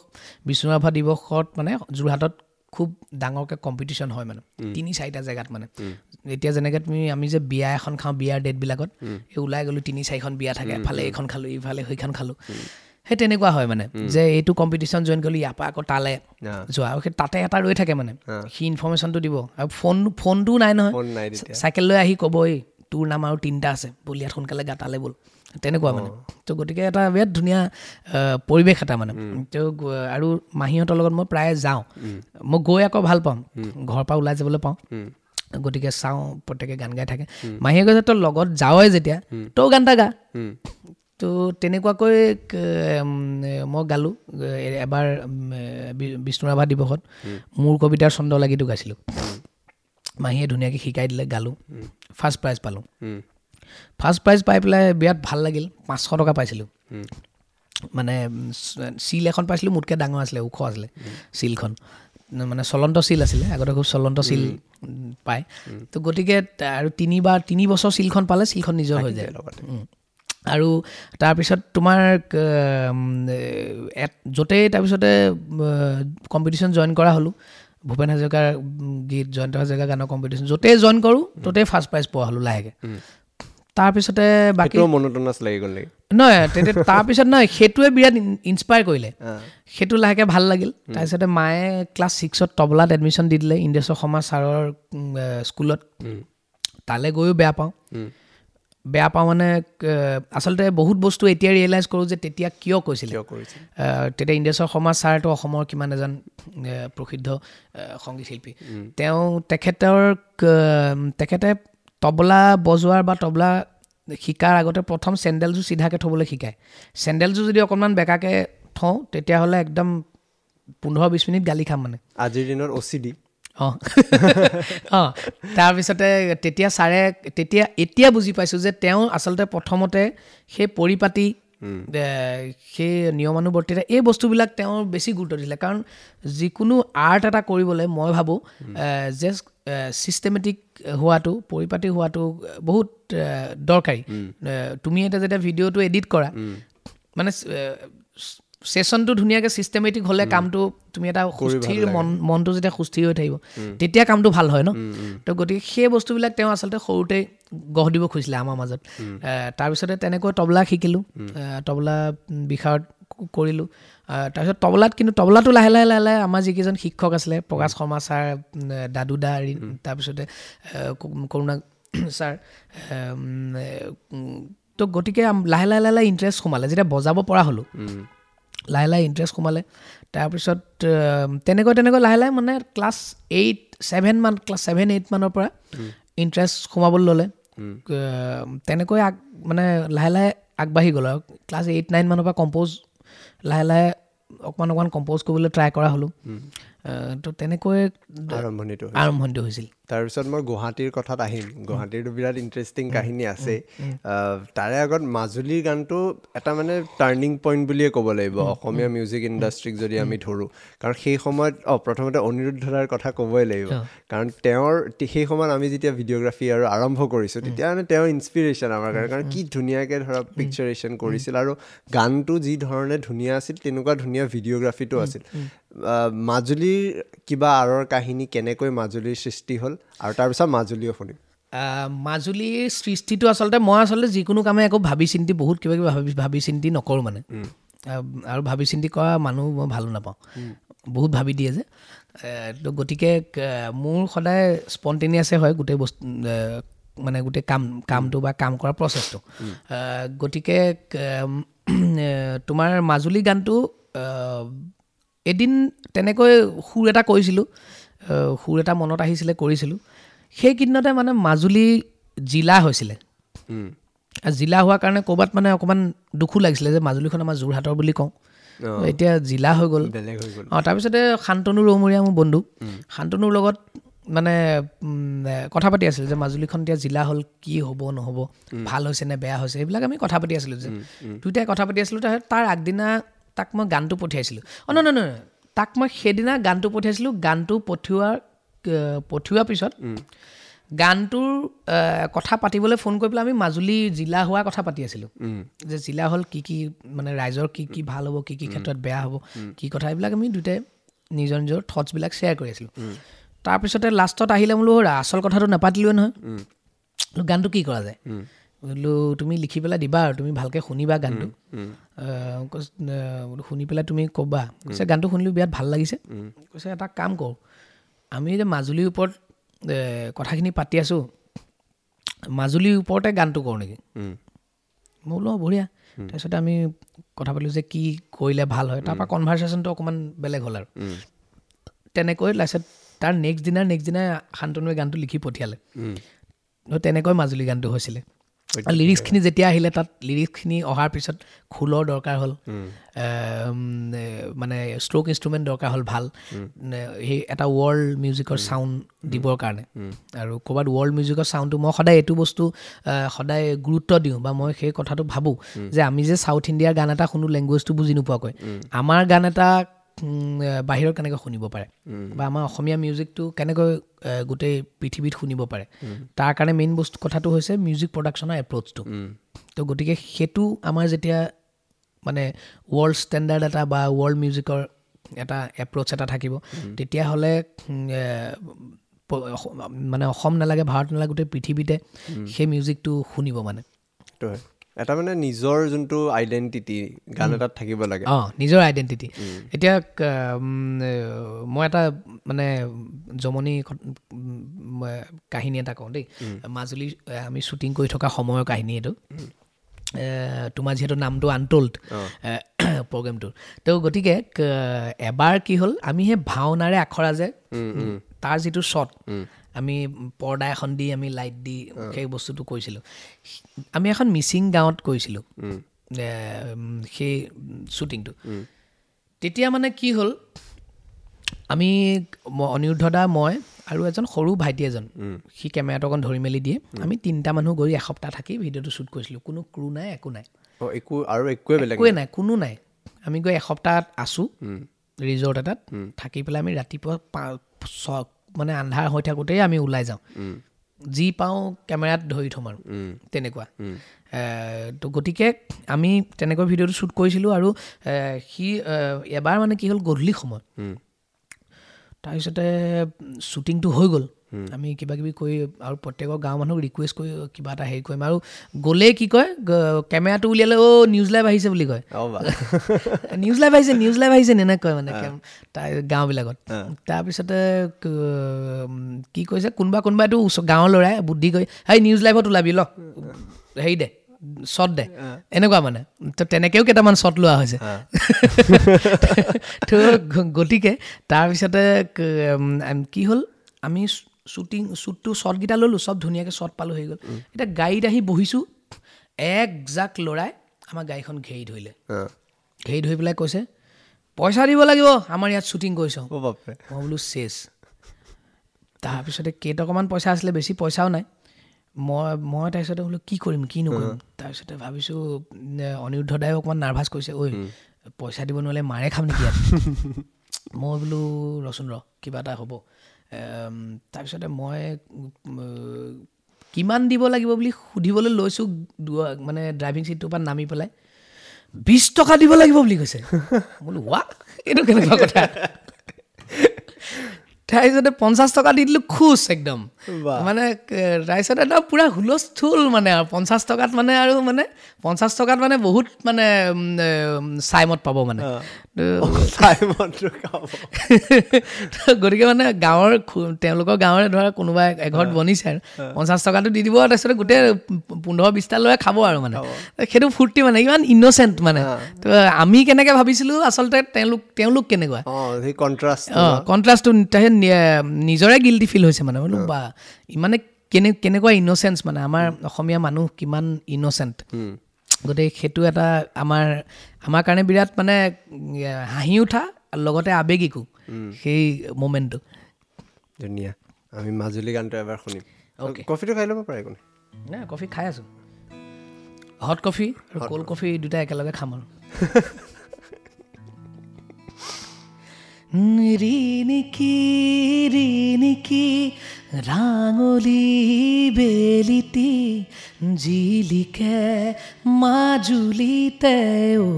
বিষ্ণু ৰাভা দিৱসত মানে যোৰহাটত খুব ডাঙৰকৈ কম্পিটিশ্যন হয় মানে, 3-4টা জেগাত মানে। এতিয়া যেনেকৈ তুমি আমি যে বিয়া এখন খাওঁ, বিয়াৰ ডেটবিলাকত এই ওলাই গ'লোঁ 3-4খন বিয়া থাকে, এফালে এইখন খালোঁ, ইফালে সেইখন খালোঁ, সেই তেনেকুৱা হয় মানে, যে এইটো কম্পিটিশ্যন জইন কৰিলোঁ, ইয়াৰ পৰা আকৌ তালৈ যোৱা, আৰু সেই তাতে এটা ৰৈ থাকে মানে, সি ইনফৰ্মেশ্যনটো দিব। আৰু ফোনটোও নাই নহয়, চাইকেল লৈ আহি ক'ব এই তোৰ নাম আৰু 3টা আছে, ব'ল ইয়াত সোনকালে গা তালৈ ব'ল, তেনেকুৱা মানে। তো গতিকে এটা বিৰাট ধুনীয়া পৰিৱেশ এটা মানে। তো আৰু মাহীহঁতৰ লগত মই প্ৰায়ে যাওঁ, মই গৈ আকৌ ভাল পাওঁ, ঘৰৰ পৰা ওলাই যাবলৈ পাওঁ। গতিকে চাওঁ প্ৰত্যেকে গান গাই থাকে। মাহীয়ে কৈছে তই লগত যাৱই যেতিয়া তই গান এটা গা। তো তেনেকুৱাকৈ মই গালোঁ এবাৰ বিষ্ণু ৰাভা দিৱসত মোৰ কবিতাৰ ছন্দ লাগিটো গাইছিলোঁ। মাহীয়ে ধুনীয়াকৈ শিকাই দিলে, গালোঁ, ফাৰ্ষ্ট প্ৰাইজ পালোঁ। ফাৰ্ষ্ট প্ৰাইজ পাই পেলাই বিৰাট ভাল লাগিল, 500 টকা পাইছিলোঁ। মানে চিল এখন পাইছিলোঁ, মোতকৈ ডাঙৰ আছিলে, ওখ আছিলে চিলখন, মানে চলন্ত চিল আছিলে, আগতে খুব চলন্ত চিল পায়। তো গতিকে আৰু 3 বছৰ চিলখন পালে চিলখন নিজৰ হৈ যায়। আৰু তাৰপিছত তোমাৰ য'তেই তাৰপিছতে কম্পিটিশ্যন জইন কৰা হ'লোঁ, ভূপেন হাজৰিকাৰ গীত, জয়ন্ত হাজৰিকাৰ গানৰ কম্পিটিশ্যন য'তেই জইন কৰোঁ ত'তেই ফাৰ্ষ্ট প্ৰাইজ পোৱা হ'লোঁ লাহেকৈ। তাৰপিছতে বাকী নহয় তেতিয়া তাৰপিছত নহয়, সেইটোৱে বিৰাট ইনস্পায়াৰ কৰিলে, সেইটো লাহেকৈ ভাল লাগিল। তাৰপিছতে মায়ে ক্লাছ 6ত তবলাত এডমিশ্যন দি দিলে ইন্দ্ৰেশ্বৰ শৰ্মা ছাৰৰ স্কুলত। তালৈ গৈও বেয়া পাওঁ মানে আচলতে বহুত বস্তু এতিয়া ৰিয়েলাইজ কৰোঁ যে তেতিয়া কিয় কৈছিলে। তেতিয়া ইন্দ্ৰেশ্বৰ শৰ্মা ছাৰটো অসমৰ কিমান এজন প্ৰসিদ্ধ সংগীত শিল্পী, তেওঁ তেখেতে তবলা বজোৱাৰ বা তবলা শিকাৰ আগতে প্ৰথম চেণ্ডেলযোৰ চিধাকৈ থ'বলৈ শিকায়। চেণ্ডেলযোৰ যদি অকণমান বেকাকৈ থওঁ তেতিয়াহ'লে একদম 15-20 মিনিট গালি খাম মানে। আজিৰ দিনত OCD। অঁ অঁ তাৰপিছতে তেতিয়া ছাৰে তেতিয়া এতিয়া বুজি পাইছোঁ যে তেওঁ আচলতে প্ৰথমতে সেই পৰিপাটি, সেই নিয়মানুৱৰ্তিতা, এই বস্তুবিলাক তেওঁ বেছি গুৰুত্ব দিছিলে। কাৰণ যিকোনো আৰ্ট এটা কৰিবলৈ মই ভাবোঁ যে ছিষ্টেমেটিক হোৱাটো, পৰিপাটি হোৱাটো বহুত দৰকাৰী। তুমি এতিয়া যেতিয়া ভিডিঅ'টো এডিট কৰা, মানে ছেশ্যনটো ধুনীয়াকৈ ছিষ্টেমেটিক হ'লে কামটো তুমি এটা সুস্থিৰ মনটো যেতিয়া সুস্থিৰ হৈ থাকিব তেতিয়া কামটো ভাল হয় ন। তো গতিকে সেই বস্তুবিলাক তেওঁ আচলতে সৰুতে গঢ় দিব খুজিছিলে আমাৰ মাজত। তাৰপিছতে তেনেকৈ তবলা শিকিলোঁ, তবলা বিশাৰদ কৰিলোঁ। তাৰপিছত তবলাত, কিন্তু তবলাটো লাহে লাহে লাহে লাহে আমাৰ যিকেইজন শিক্ষক আছিলে, প্ৰকাশ শৰ্মা ছাৰ, দাদু দা, তাৰপিছতে কৰুণা ছাৰ, তো গতিকে লাহে লাহে লাহে লাহে ইণ্টাৰেষ্ট সোমালে। যেতিয়া বজাব পৰা হ'লোঁ লাহে লাহে ইণ্টাৰেষ্ট সোমালে। তাৰপিছত তেনেকৈ তেনেকৈ লাহে লাহে মানে ক্লাছ 7 8 মানৰ পৰা ইণ্টাৰেষ্ট সোমাবলৈ ল'লে। তেনেকৈ মানে লাহে লাহে আগবাঢ়ি গ'ল আৰু ক্লাছ 8 9 মানৰ পৰা কম্প'জ লাহে লাহে অকণমান অকণমান কম্প'জ কৰিবলৈ ট্ৰাই কৰা হ'লোঁ। তো তেনেকৈ আৰম্ভণিটো হৈছিল। তাৰপিছত মই গুৱাহাটীৰ কথাত আহিম, গুৱাহাটীৰটো বিৰাট ইণ্টাৰেষ্টিং কাহিনী আছে। তাৰে আগত মাজুলীৰ গানটো এটা মানে টাৰ্ণিং পইণ্ট বুলিয়ে ক'ব লাগিব অসমীয়া মিউজিক ইণ্ডাষ্ট্ৰীক যদি আমি ধৰোঁ। কাৰণ সেই সময়ত প্ৰথমতে অনিৰুদ্ধ দাৰ কথা ক'বই লাগিব, কাৰণ তেওঁৰ সেই সময়ত আমি যেতিয়া ভিডিঅ'গ্ৰাফী আৰু আৰম্ভ কৰিছোঁ তেতিয়া মানে তেওঁৰ ইনস্পিৰেশ্যন আমাৰ কাৰণে, কাৰণ কি ধুনীয়াকৈ ধৰা পিকচাৰেশ্যন কৰিছিল আৰু গানটো যি ধৰণে ধুনীয়া আছিল তেনেকুৱা ধুনীয়া ভিডিঅ'গ্ৰাফীটো আছিল। মাজুলীৰ কিবা আঁৰৰ কাহিনী, কেনেকৈ মাজুলীৰ সৃষ্টি হ'ল আৰু তাৰপিছত মাজুলীও শুনিম। মাজুলীৰ সৃষ্টিটো আচলতে মই আচলতে যিকোনো কামে একো ভাবি চিন্তি বহুত কিবা কিবি ভাবি চিন্তি নকৰোঁ মানে, আৰু ভাবি চিন্তি কৰা মানুহ মই ভালো নাপাওঁ, বহুত ভাবি দিয়ে যে। তো গতিকে মোৰ সদায় স্পণ্টেনিয়াছে হয় গোটেই বস্তু, মানে গোটেই কামটো বা কাম কৰা প্ৰচেছটো। গতিকে তোমাৰ মাজুলী গানটো এদিন তেনেকৈ সুৰ এটা কৰিছিলোঁ, সুৰ এটা মনত আহিছিলে, কৰিছিলোঁ। সেইকেইদিনতে মানে মাজুলী জিলা হৈছিলে, জিলা হোৱাৰ কাৰণে ক'ৰবাত মানে অকণমান দুখো লাগিছিলে যে মাজুলীখন আমাৰ যোৰহাটৰ বুলি কওঁ, এতিয়া জিলা হৈ গ'ল। অঁ, তাৰপিছতে শান্তনু ৰৌমৰীয়া মোৰ বন্ধু, শান্তনুৰ লগত মানে কথা পাতি আছিলোঁ যে মাজুলীখন এতিয়া জিলা হ'ল, কি হ'ব নহ'ব, ভাল হৈছে নে বেয়া হৈছে, এইবিলাক আমি কথা পাতি আছিলোঁ যে দুয়োটাই কথা পাতি আছিলোঁ। তাৰপিছত তাৰ আগদিনা তাক মই গানটো পঠিয়াইছিলোঁ। অঁ, নহয় নহয়, তাক মই সেইদিনা গানটো পঠিয়াইছিলোঁ। গানটো পঠিওৱাৰ পিছত গানটোৰ কথা পাতিবলৈ ফোন কৰি পেলাই আমি মাজুলী জিলা হোৱা কথা পাতি আছিলোঁ যে জিলা হ'ল কি কি মানে ৰাইজৰ কি কি ভাল হ'ব, কি কি ক্ষেত্ৰত বেয়া হ'ব, কি কথা, এইবিলাক আমি দুয়োটাই নিজৰ নিজৰ থটছবিলাক শ্বেয়াৰ কৰি আছিলোঁ। তাৰপিছতে লাষ্টত আহিলে বোলো আচল কথাটো নাপাতিলোৱে নহয়, গানটো কি কৰা যায়, বোলো তুমি লিখি পেলাই দিবা আৰু তুমি ভালকৈ শুনিবা গানটো, শুনি পেলাই তুমি ক'বা। কৈছে গানটো শুনিলোঁ বিৰাট ভাল লাগিছে, কৈছে এটা কাম কৰোঁ, আমি যে মাজুলীৰ ওপৰত কথাখিনি পাতি আছোঁ, মাজুলীৰ ওপৰতে গানটো কৰোঁ নেকি? মই বোলো বঢ়িয়া। তাৰপিছতে আমি কথা পাতিলোঁ যে কি কৰিলে ভাল হয়, তাৰপৰা কনভাৰ্চেশ্যনটো অকণমান বেলেগ হ'ল আৰু তেনেকৈ লাষ্টত তাৰ নেক্সট দিনা শান্তনুৱে গানটো লিখি পঠিয়ালে। তেনেকৈ মাজুলী গানটো হৈছিলে। লিৰিক্সখিনি যেতিয়া আহিলে, তাত লিৰিক্সখিনি অহাৰ পিছত খোলৰ দৰকাৰ হ'ল, মানে ষ্ট্ৰ'ক ইনষ্ট্ৰুমেণ্ট দৰকাৰ হ'ল ভাল, সেই এটা ৱৰ্ল্ড মিউজিকৰ চাউণ্ড দিবৰ কাৰণে। আৰু ক'ৰবাত ৱৰ্ল্ড মিউজিকৰ চাউণ্ডটো মই সদায় এইটো বস্তু সদায় গুৰুত্ব দিওঁ বা মই সেই কথাটো ভাবোঁ যে আমি যে চাউথ ইণ্ডিয়াৰ গান এটা শুনো লেংগুৱেজটো বুজি নোপোৱাকৈ, আমাৰ গান এটা বাহিৰত কেনেকৈ শুনিব পাৰে বা আমাৰ অসমীয়া মিউজিকটো কেনেকৈ গোটেই পৃথিৱীত শুনিব পাৰে, তাৰ কাৰণে মেইন বস্তু কথাটো হৈছে মিউজিক প্ৰডাকশ্যনৰ এপ্ৰ'চটো। তো গতিকে সেইটো আমাৰ যেতিয়া মানে ৱৰ্ল্ড ষ্টেণ্ডাৰ্ড এটা বা ৱৰ্ল্ড মিউজিকৰ এটা এপ্ৰ'চ এটা থাকিব, তেতিয়াহ'লে মানে অসম নালাগে, ভাৰত নালাগে, গোটেই পৃথিৱীতে সেই মিউজিকটো শুনিব। মানে এটা মানে নিজৰ যোনটো আইডেণ্টিটি গান এটাত থাকিব লাগে। অঁ, নিজৰ আইডেণ্টিটি। এতিয়া মই এটা মানে জমনি কাহিনী এটা কওঁ দেই। মাজুলী আমি শ্বুটিং কৰি থকা সময়ৰ কাহিনী এইটো। তোমাৰ যিহেতু নামটো আনটোল্ড প্ৰগ্ৰেমটোৰ, তো গতিকে এবাৰ কি হ'ল, আমি সেই ভাওনাৰে আখৰা যে তাৰ যিটো শ্বট আমি পৰ্দা এখন দি আমি লাইট দি সেই বস্তুটো কৰিছিলোঁ। আমি এখন মিচিং গাঁৱত কৰিছিলোঁ সেই শ্বুটিংটো। তেতিয়া মানে কি হ'ল, আমি অনিৰুদ্ধ দা, মই আৰু এজন সৰু ভাইটি এজন, সি কেমেৰাটো অকণ ধৰি মেলি দিয়ে, আমি তিনিটা মানুহ গৈ এসপ্তাহ থাকি ভিডিঅ'টো শ্বুট কৰিছিলোঁ। কোনো ক্ৰু নাই, একো নাই, একোৱে নাই, কোনো নাই। আমি গৈ এসপ্তাহ আছোঁ ৰিজৰ্ট এটাত থাকি পেলাই আমি ৰাতিপুৱা 5 মানে আন্ধাৰ হৈ থাকোঁতেই আমি ওলাই যাওঁ, যি পাওঁ কেমেৰাত ধৰি থ'ম আৰু তেনেকুৱা। তো গতিকে আমি তেনেকৈ ভিডিঅ'টো শ্বুট কৰিছিলোঁ। আৰু সি এবাৰ মানে কি হ'ল, গধূলি সময়ত তাৰপিছতে শ্বুটিংটো হৈ গ'ল, আমি কিবা কিবি কৰি আৰু প্ৰত্যেকৰ গাঁৱৰ মানুহক ৰিকুৱেষ্ট কৰি কিবা এটা হেৰি কৰিম। আৰু গ'লেই কি কয়, কেমেৰাটো উলিয়ালে অ' নিউজ লাইভ আহিছে বুলি কয়, নিউজ লাইভ আহিছে, নিউজ লাইভ আহিছে এনেকৈ কয় মানে তাৰ গাঁওবিলাকত। তাৰপিছতে কি কৈছে, কোনোবা কোনোবাইতো গাঁৱৰ ল'ৰাই বুদ্ধি কৰি হেই নিউজ লাইভত ওলাবি ল, হেৰি দে শ্বট দে, এনেকুৱা মানে। তো তেনেকৈও কেইটামান শ্বট লোৱা হৈছে। তো গতিকে তাৰপিছতে কি হ'ল, আমি শ্বুটিং শ্বুটটো শ্বটকেইটা ল'লোঁ, চব ধুনীয়াকৈ শ্বট পালোঁ, হৈ গ'ল। এতিয়া গাড়ীত আহি বহিছোঁ, একজাক ল'ৰাই আমাৰ গাড়ীখন ঘেৰি ধৰিলে। ঘেৰি ধৰি পেলাই কৈছে পইচা দিব লাগিব, আমাৰ ইয়াত শ্বুটিং কৰিছ। মই বোলো চেচ। তাৰপিছতে কেইটকামান পইচা আছিলে, বেছি পইচাও নাই। মই তাৰপিছতে বোলো কি কৰিম কি নকৰিম। তাৰপিছতে ভাবিছোঁ অনিৰুদ্ধ দায়ো অকণমান নাৰ্ভাছ কৰিছে, ঐ পইচা দিব নোৱাৰিলে মাৰে খাম নেকি ইয়াত। মই বোলো ৰচোন ৰ, কিবা এটা হ'ব। তাৰপিছতে মই কিমান দিব লাগিব বুলি সুধিবলৈ লৈছোঁ, মানে ড্ৰাইভিং ছিটটোৰ পৰা নামি পেলাই 20 টকা দিব লাগিব বুলি কৈছে। বোলো ৱা, এইটো কেনেকুৱা কথা। তাৰপিছতে 50 টকা দি দিলোঁ, খুচ একদম মানে। তাৰপিছত একদম পূৰা হুলস্থুল মানে, আৰু 50 টকাত মানে, আৰু মানে 50 টকাত মানে বহুত মানে চাইমত পাব মানে। গতিকে মানে গাঁৱৰ তেওঁলোকৰ গাঁৱৰে ধৰা কোনোবা এঘৰত বনিছে আৰু 50 টকাটো দি দিব, তাৰপিছতে গোটেই 15-20টা ল'ৰাই খাব আৰু মানে। সেইটো ফূৰ্তি মানে, ইমান ইন'চেণ্ট মানে। তো আমি কেনেকৈ ভাবিছিলোঁ, আচলতে তেওঁলোক কেনেকুৱা কণ্ট্ৰাষ্টটো তাৰপিছত নিজৰে গিল্টি ফিল হৈছে মানে। বোলো বা ইমানে কেনেকুৱা ইন'চেঞ্চ মানে, আমাৰ অসমীয়া মানুহ কিমান ইন'চেণ্ট। গতিকে সেইটো এটা আমাৰ কাৰণে বিৰাট মানে হাঁহি উঠা লগতে আৱেগিকো সেই মমেণ্টটো। ধুনীয়া। আমি মাজুলী গানটো এবাৰ শুনিম। কফিটো খাই ল'ব পাৰে, একো নাই, কফি খাই আছোঁ, হট কফি আৰু ক'ল্ড কফি দুটা একেলগে খাম আৰু। ৰিণিকি ৰিণিকি ৰাঙলী বেলিটি জিলিকে মাজুলীতে ঐ,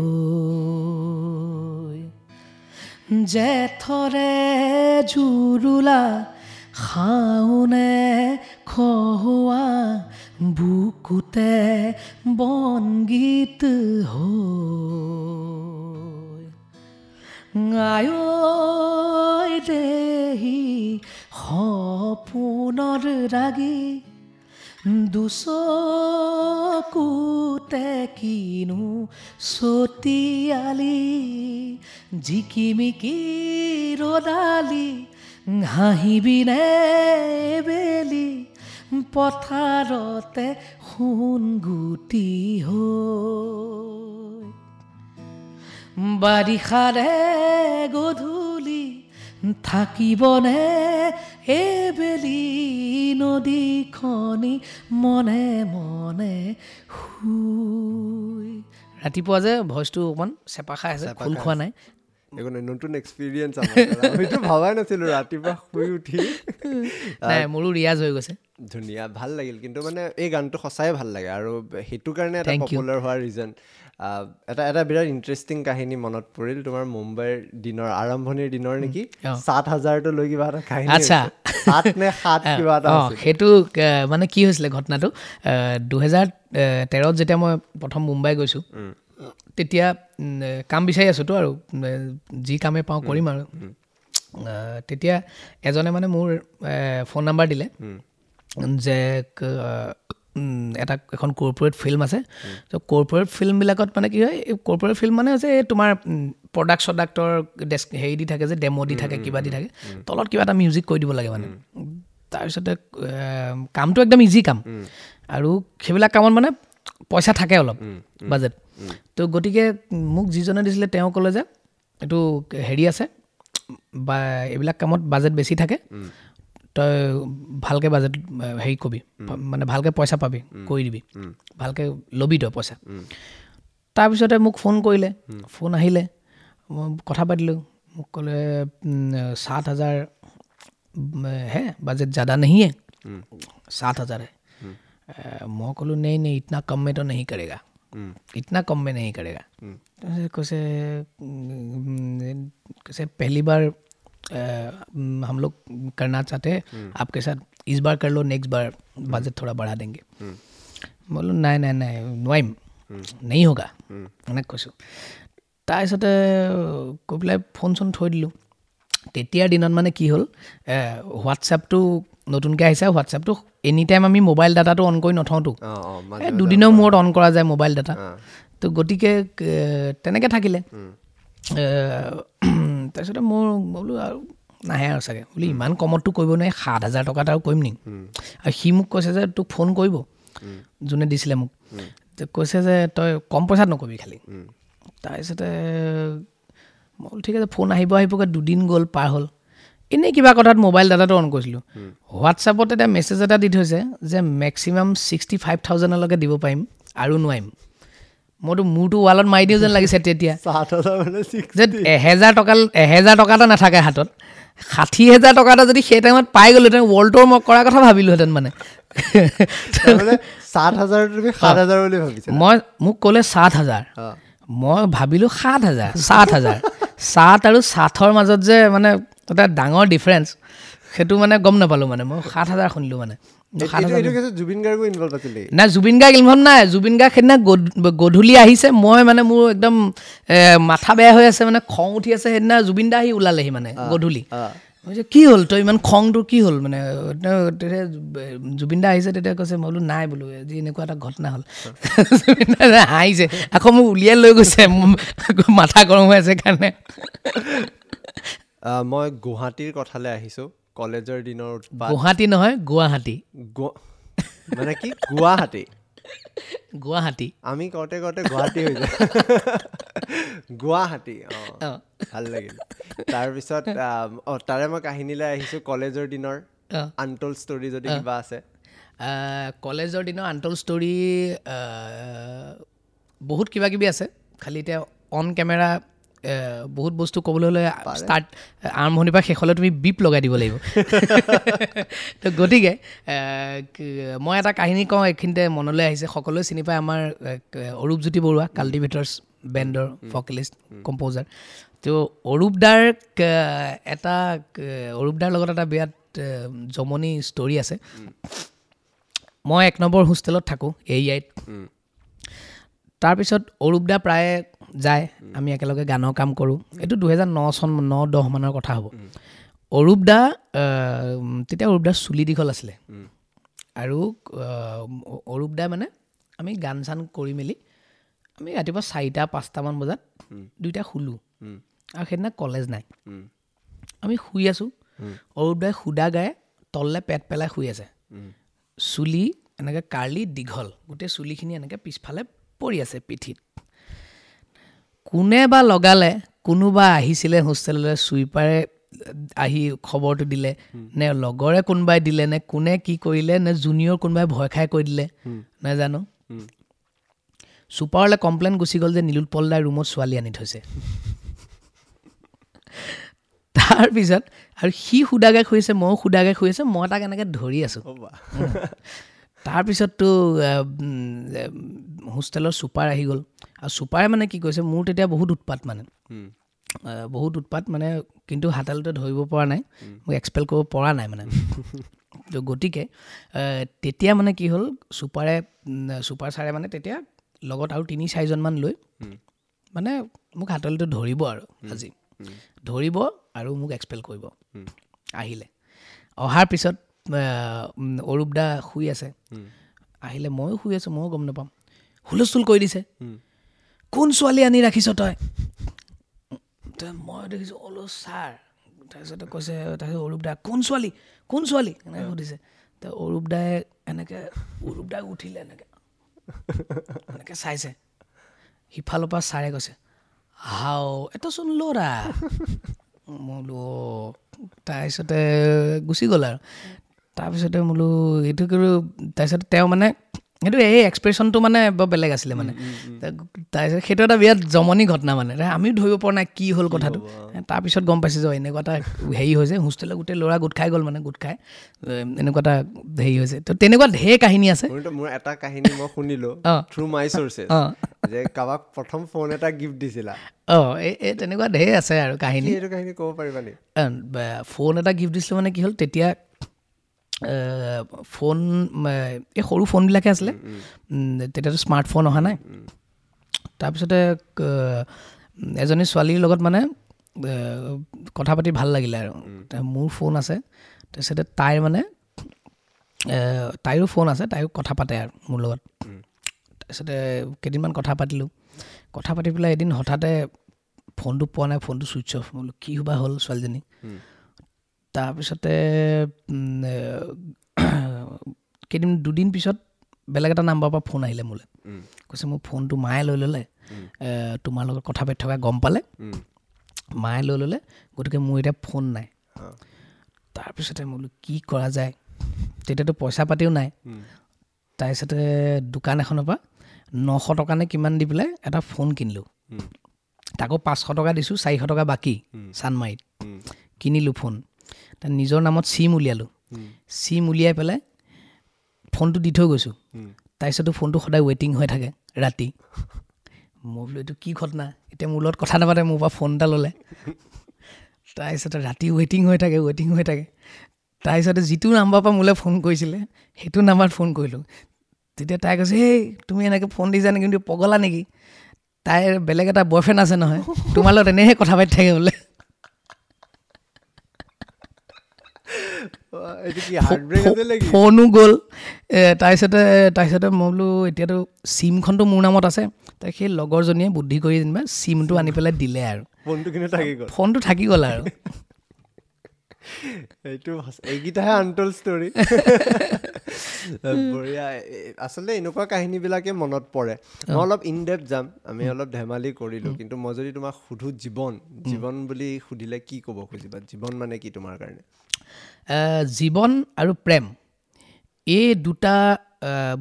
জেঠৰে জুৰুলা শাওনে খহোৱা বুকুতে বনগীত হৈ, আয়ৈ দেহি সপোনৰ ৰাগি দুচকুতে কিনো ছটিয়ালি, জিকিমিকি ৰ'দালি হাঁহিবিনে বেলি, পথাৰতে সোণগুটি হৈ, বাৰিষাৰে গধূলি থাকিবনে এবেলি, নদীখনি মনে মনে শুই। ৰাতিপুৱা যে ভইচটো অকণমান চেপা খাই আছে, খোল খোৱা নাই। একো নাই, নতুন এক্সপিৰিয়েঞ্চ, আমিতো ভবাই নাছিলোঁ ৰাতিপুৱা শুই উঠি। নাই, মোৰো ৰিয়াজ হৈ গৈছে। ধুনীয়া, ভাল লাগিল। কিন্তু মানে এই গানটো সঁচাই ভাল লাগে আৰু সেইটো কাৰণে এটা পপুলাৰ হোৱাৰ ৰিজন। এটা এটা বিৰাট ইণ্টাৰেষ্টিং কাহিনী মনত পৰিল তোমাৰ, মুম্বাইৰ দিনৰ আৰম্ভণিৰ দিনৰ নেকি, 7,000টো লৈ কিবা এটা কাহিনী। আচ্ছা, 7 নে 7 কিবা এটা। সেইটো মানে কি হৈছিলে ঘটনাটো, 2013 যেতিয়া মই প্ৰথম মুম্বাই গৈছোঁ, তেতিয়া কাম বিচাৰি আছোঁতো আৰু যি কামে পাওঁ কৰিম আৰু। তেতিয়া এজনে মানে মোৰ ফোন নাম্বাৰ দিলে যে এটা এখন কৰ্পৰেট ফিল্ম আছে। ত' কৰ্পৰেট ফিল্মবিলাকত মানে কি হয়, এই কৰ্পৰেট ফিল্ম মানে হৈছে এই তোমাৰ প্ৰডাক্ট চডাক্টৰ ডেস্ক হেৰি দি থাকে যে, ডেম' দি থাকে, কিবা দি থাকে, তলত কিবা এটা মিউজিক কৰি দিব লাগে মানে। তাৰপিছতে কামটো একদম ইজি কাম আৰু সেইবিলাক কামত মানে পইচা থাকে অলপ বাজেট। তো গতিকে মোক যিজনে দিছিলে তেওঁ ক'লে যে এইটো হেৰি আছে বা এইবিলাক কামত বাজেট বেছি থাকে, তই ভালকৈ বাজেট হেৰি কবি, মানে ভালকৈ পইচা পাবি, কৰি দিবি, ভালকৈ ল'বি তই পইচা। তাৰপিছতে মোক ফোন কৰিলে, ফোন আহিলে, মই কথা পাতিলোঁ, মোক ক'লে 7,000 হে, বাজেট জ্যাদা नहीं है, 7,000 है। মই ক'লোঁ नहीं नहीं, इतना कम में तो नहीं करेगा, इतना कम में नहीं करेगा। কৈছে কৈছে पहली बार हम लोग करना चाहते हैं आपके साथ, इस बार कर लो, नेक्स्ट बार बजट थोड़ा बढ़ा देंगे। बोलो নাই নাই নাই নোৱাৰিম, नहीं होगा, এনেকৈ কৈছোঁ। তাৰপিছতে কৈ পেলাই ফোন চোন থৈ দিলোঁ। তেতিয়াৰ দিনত মানে কি হ'ল, হোৱাটছএপটো নতুনকৈ আহিছে, হোৱাটছএপটো এনি টাইম আমি মোবাইল ডাটাটো অন কৰি নথওঁতো, দুদিনৰ মূৰত অন কৰা যায় মোবাইল ডাটা। তো গতিকে তেনেকৈ থাকিলে। তাৰপিছতে মোৰ বোলো আৰু নাহে আৰু চাগে, বোলো ইমান কমততো কৰিব নোৱাৰি, 7,000 টকাত আৰু কৰিম নেকি। আৰু সি মোক কৈছে যে তোক ফোন কৰিব, যোনে দিছিলে মোক, কৈছে যে তই কম পইচাত নকৰিবি খালি। তাৰপিছতে মই বোলো ঠিক আছে, ফোন আহিব আহিবগৈ, দুদিন গ'ল পাৰ হ'ল। এনেই কিবা কথাত মোবাইল ডাটাটো অন কৰিছিলোঁ, হোৱাটছএপত এতিয়া মেছেজ এটা দি থৈছে যে মেক্সিমাম 65,000লৈকে দিব পাৰিম আৰু নোৱাৰিম। মইতো মূৰটো ৱালত মাৰি দিওঁ যেন লাগিছে তেতিয়া, যে 1,000 টকা 1,000 টকা এটা নাথাকে হাতত, 60,000 টকা এটা যদি সেই টাইমত পাই গ'লোহেঁতেন ৱৰ্ল্ড টুৰ মই কৰাৰ কথা ভাবিলোহেঁতেন। মানে 7,000 বুলি ভাবিছোঁ মই, মোক ক'লে 7,000, মই ভাবিলোঁ 7,000, 7,000, 7 আৰু 7ৰ মাজত যে মানে এটা ডাঙৰ ডিফাৰেঞ্চ, সেইটো মানে গম নাপালোঁ। মানে মই 7,000 শুনিলোঁ। মানে জুবিন গাৰ্গো ইনভলভ আছিল নাই? জুবিন গাৰ্গ ইনভলভ নাই। জুবিন গাৰ্গ সেইদিনা গধূলি আহিছে, মই মানে মোৰ একদম মাথা বেয়া হৈ আছে, মানে খং উঠি আছে। সেইদিনা জুবিন দা আহি ওলালেহি মানে গধূলি। কি হ'ল তই ইমান খংটো কি হ'ল মানে? তেতিয়া জুবিন দা আহিছে, তেতিয়া কৈছে, মই বোলো নাই বোলো আজি এনেকুৱা এটা ঘটনা হ'ল। জুবিন দা হাঁহিছে, আকৌ মোক উলিয়াই লৈ গৈছে, মাথা গৰম হৈ আছে কাৰণে। মই গুৱাহাটীৰ কথালৈ আহিছোঁ, কলেজৰ দিনৰ। গুৱাহাটী নহয়, গুৱাহাটী। মানে কি গুৱাহাটী? গুৱাহাটী আমি কওঁতে কওঁতে গুৱাহাটী হৈ যায়। গুৱাহাটী, অঁ ভাল লাগিল। তাৰপিছত তাৰে মই কাহিনীলৈ আহিছোঁ, কলেজৰ দিনৰ আনটল ষ্টৰী যদি কিবা আছে। কলেজৰ দিনৰ আনটল ষ্টৰী বহুত কিবা কিবি আছে, খালি এতিয়া অন কেমেৰা বহুত বস্তু ক'বলৈ হ'লে ষ্টাৰ্ট আৰম্ভণিৰ পৰা শেষলৈ তুমি বিপ লগাই দিব লাগিব। তো গতিকে মই এটা কাহিনী কওঁ, এইখিনিতে মনলৈ আহিছে, সকলোৱে চিনি পায় আমাৰ অৰূপজ্যোতি বৰুৱা, কাল্টিভেটৰ্ছ বেণ্ডৰ ভকেলিষ্ট কম্প'জাৰ। তো অৰূপদাৰ এটা, অৰূপদাৰ লগত এটা বিৰাট জমনি ষ্টৰী আছে। মই 1 নম্বৰ হোষ্টেলত থাকোঁ এ আইত। তাৰপিছত অৰূপদা প্ৰায়ে যায়, আমি একেলগে গানৰ কাম কৰোঁ। এইটো 2009 চন, 9-10 মানৰ কথা হ'ব। অৰূপদা তেতিয়া অৰূপদাৰ চুলি দীঘল আছিলে, আৰু অৰূপদা মানে আমি গান চান কৰি মেলি আমি ৰাতিপুৱা 4-5টামান বজাত দুইটা শুলোঁ, আৰু সেইদিনা কলেজ নাই। আমি শুই আছোঁ, অৰূপদাই সুদা গায়ে তললৈ পেট পেলাই শুই আছে, চুলি এনেকৈ কাৰ্লি দীঘল, গোটেই চুলিখিনি এনেকৈ পিছফালে পৰি আছে পিঠিত। কোনে বা লগালে, কোনোবা আহিছিলে হোষ্টেললৈ, চুইপাৰে আহি খবৰটো দিলে নে লগৰে কোনোবাই দিলে নে কোনে কি কৰিলে নে জুনিয়ৰ কোনোবাই ভয় খাই কৈ দিলে নাজানো। চুপাৰলৈ কমপ্লেইন গুচি গ'ল যে নীলোৎপল দাই ৰুমত ছোৱালী আনি থৈছে। তাৰপিছত আৰু সি সুদাগে শুইছে, ময়ো সুদাগে শুই আছোঁ, মই তাক এনেকৈ ধৰি আছোঁ। তাৰপিছততো হোষ্টেলৰ চুপাৰ আহি গ'ল, আৰু চুপাৰে মানে কি কৈছে, মোৰ তেতিয়া বহুত উৎপাত, মানে বহুত উৎপাত মানে, কিন্তু হাতালতে ধৰিব পৰা নাই, মোক এক্সপেল কৰিব পৰা নাই মানে। তো গতিকে তেতিয়া মানে কি হ'ল, চুপাৰে, চুপাৰ ছাৰে মানে তেতিয়া লগত আৰু 3-4জনমান লৈ মানে মোক হাতলটো ধৰিব আৰু আজি ধৰিব আৰু মোক এক্সপেল কৰিব আহিলে। অহাৰ পিছত অৰূপদা শুই আছে, আহিলে ময়ো শুই আছোঁ, ময়ো গম নাপাম, হুলস্থুল কৰি দিছে, কোন ছোৱালী আনি ৰাখিছ তই? মই দেখিছোঁ অলো ছাৰ। তাৰপিছতে কৈছে, তাৰপিছত অৰূপদা কোন ছোৱালী, কোন ছোৱালী এনেকৈ সুধিছে। তো অৰূপদাই এনেকৈ, অৰূপদাই উঠিলে এনেকৈ এনেকৈ চাইছে, সিফালৰ পৰা ছাৰে কৈছে হাও এটোচোন ল'ৰা। মই বোলো তাৰপিছতে গুচি গ'ল আৰু। তাৰপিছতে বোলো এইটো কিন্তু, তাৰপিছতে তেওঁ মানে সেইটো এই এক্সপ্ৰেশ্যনটো মানে বৰ বেলেগ আছিলে মানে। তাৰপিছত সেইটো এটা বিৰাট জমনি ঘটনা মানে, আমিও ধৰিব পৰা নাই কি হ'ল কথাটো। তাৰপিছত গম পাইছোঁ যে এনেকুৱা এটা হেৰি হৈছে, হোষ্টেলত গোটেই ল'ৰা গোট খাই গ'ল মানে, গোট খাই এনেকুৱা এটা হেৰি হৈছে। তো তেনেকুৱা ঢেৰ কাহিনী আছে। মোৰ এটা কাহিনী মই শুনিলোঁ থ্ৰু মাই চ'ৰ্চেছ যে কাৰোবাক প্ৰথম ফোন এটা গিফ্ট দিছিলা। অঁ, এই তেনেকুৱা ঢেৰ আছে আৰু কাহিনী। এইটো কাহিনী ক'ব পাৰিবা নেকি? ফোন এটা গিফ্ট দিছিলোঁ মানে কি হ'ল, তেতিয়া ফোন এই সৰু ফোনবিলাকে আছিলে, তেতিয়াতো স্মাৰ্টফোন অহা নাই। তাৰপিছতে এজনী ছোৱালীৰ লগত মানে কথা পাতি ভাল লাগিলে আৰু, মোৰ ফোন আছে, তাৰপিছতে তাইৰ মানে তাইৰো ফোন আছে, তাইও কথা পাতে আৰু মোৰ লগত। তাৰপিছতে কেইদিনমান কথা পাতিলোঁ, কথা পাতি পেলাই এদিন হঠাতে ফোনটো পোৱা নাই, ফোনটো ছুইচ অফ। মই বোলো কি বা হ'ল ছোৱালীজনী। তাৰপিছতে কেইদিন দুদিন পিছত বেলেগ এটা নাম্বাৰৰ পৰা ফোন আহিলে মোলৈ, কৈছে মোৰ ফোনটো মায়ে লৈ ল'লে, তোমাৰ লগত কথা পাতি থকা গম পালে, মায়ে লৈ ল'লে, গতিকে মোৰ এতিয়া ফোন নাই। তাৰপিছতে মই বোলো কি কৰা যায়, তেতিয়াতো পইচা পাতিও নাই। তাৰপিছতে দোকান এখনৰ পৰা 900 টকা নে কিমান দি পেলাই এটা ফোন কিনিলোঁ, তাকো 500 টকা দিছোঁ, 400 টকা বাকী চানমাৰিত কিনিলোঁ ফোন। তাৰ নিজৰ নামত চিম উলিয়ালোঁ, চিম উলিয়াই পেলাই ফোনটো দি থৈ গৈছোঁ। তাৰপিছতো ফোনটো সদায় ৱেইটিং হৈ থাকে ৰাতি। মই বোলো এইটো কি ঘটনা, এতিয়া মোৰ লগত কথা নাপাতে, মোৰ পৰা ফোন এটা ল'লে। তাৰপিছতে ৰাতি ৱেইটিং হৈ থাকে, ৱেইটিং হৈ থাকে। তাৰপিছতে যিটো নাম্বাৰৰ পৰা মোলৈ ফোন কৰিছিলে সেইটো নাম্বাৰত ফোন কৰিলোঁ। তেতিয়া তাই কৈছে, এই তুমি এনেকৈ ফোন দিছা নেকি, কিন্তু পগলা নেকি, তাইৰ বেলেগ এটা বয়ফ্ৰেণ্ড আছে নহয়, তোমাৰ লগত এনেহে কথা পাতি থাকে বোলে। ফোনো গ'ল। তাৰপিছতে মই বোলো এতিয়াতো চিমখনতো মোৰ নামত আছে। তাই সেই লগৰজনীয়ে বুদ্ধি কৰি যেনিবা চিমটো আনি পেলাই দিলে আৰু ফোনটো থাকি গ'ল আৰু। এইটো এইকেইটাহে আনটল ষ্টৰী। বঢ়িয়া। আচলতে এনেকুৱা কাহিনীবিলাকে মনত পৰে। মই অলপ ইন ডেপথ যাম, আমি অলপ ধেমালি কৰিলোঁ, কিন্তু মই যদি তোমাক সুধো জীৱন, জীৱন বুলি সুধিলে কি ক'ব খুজিবা? জীৱন মানে কি তোমাৰ কাৰণে? জীৱন আৰু প্ৰেম এই দুটা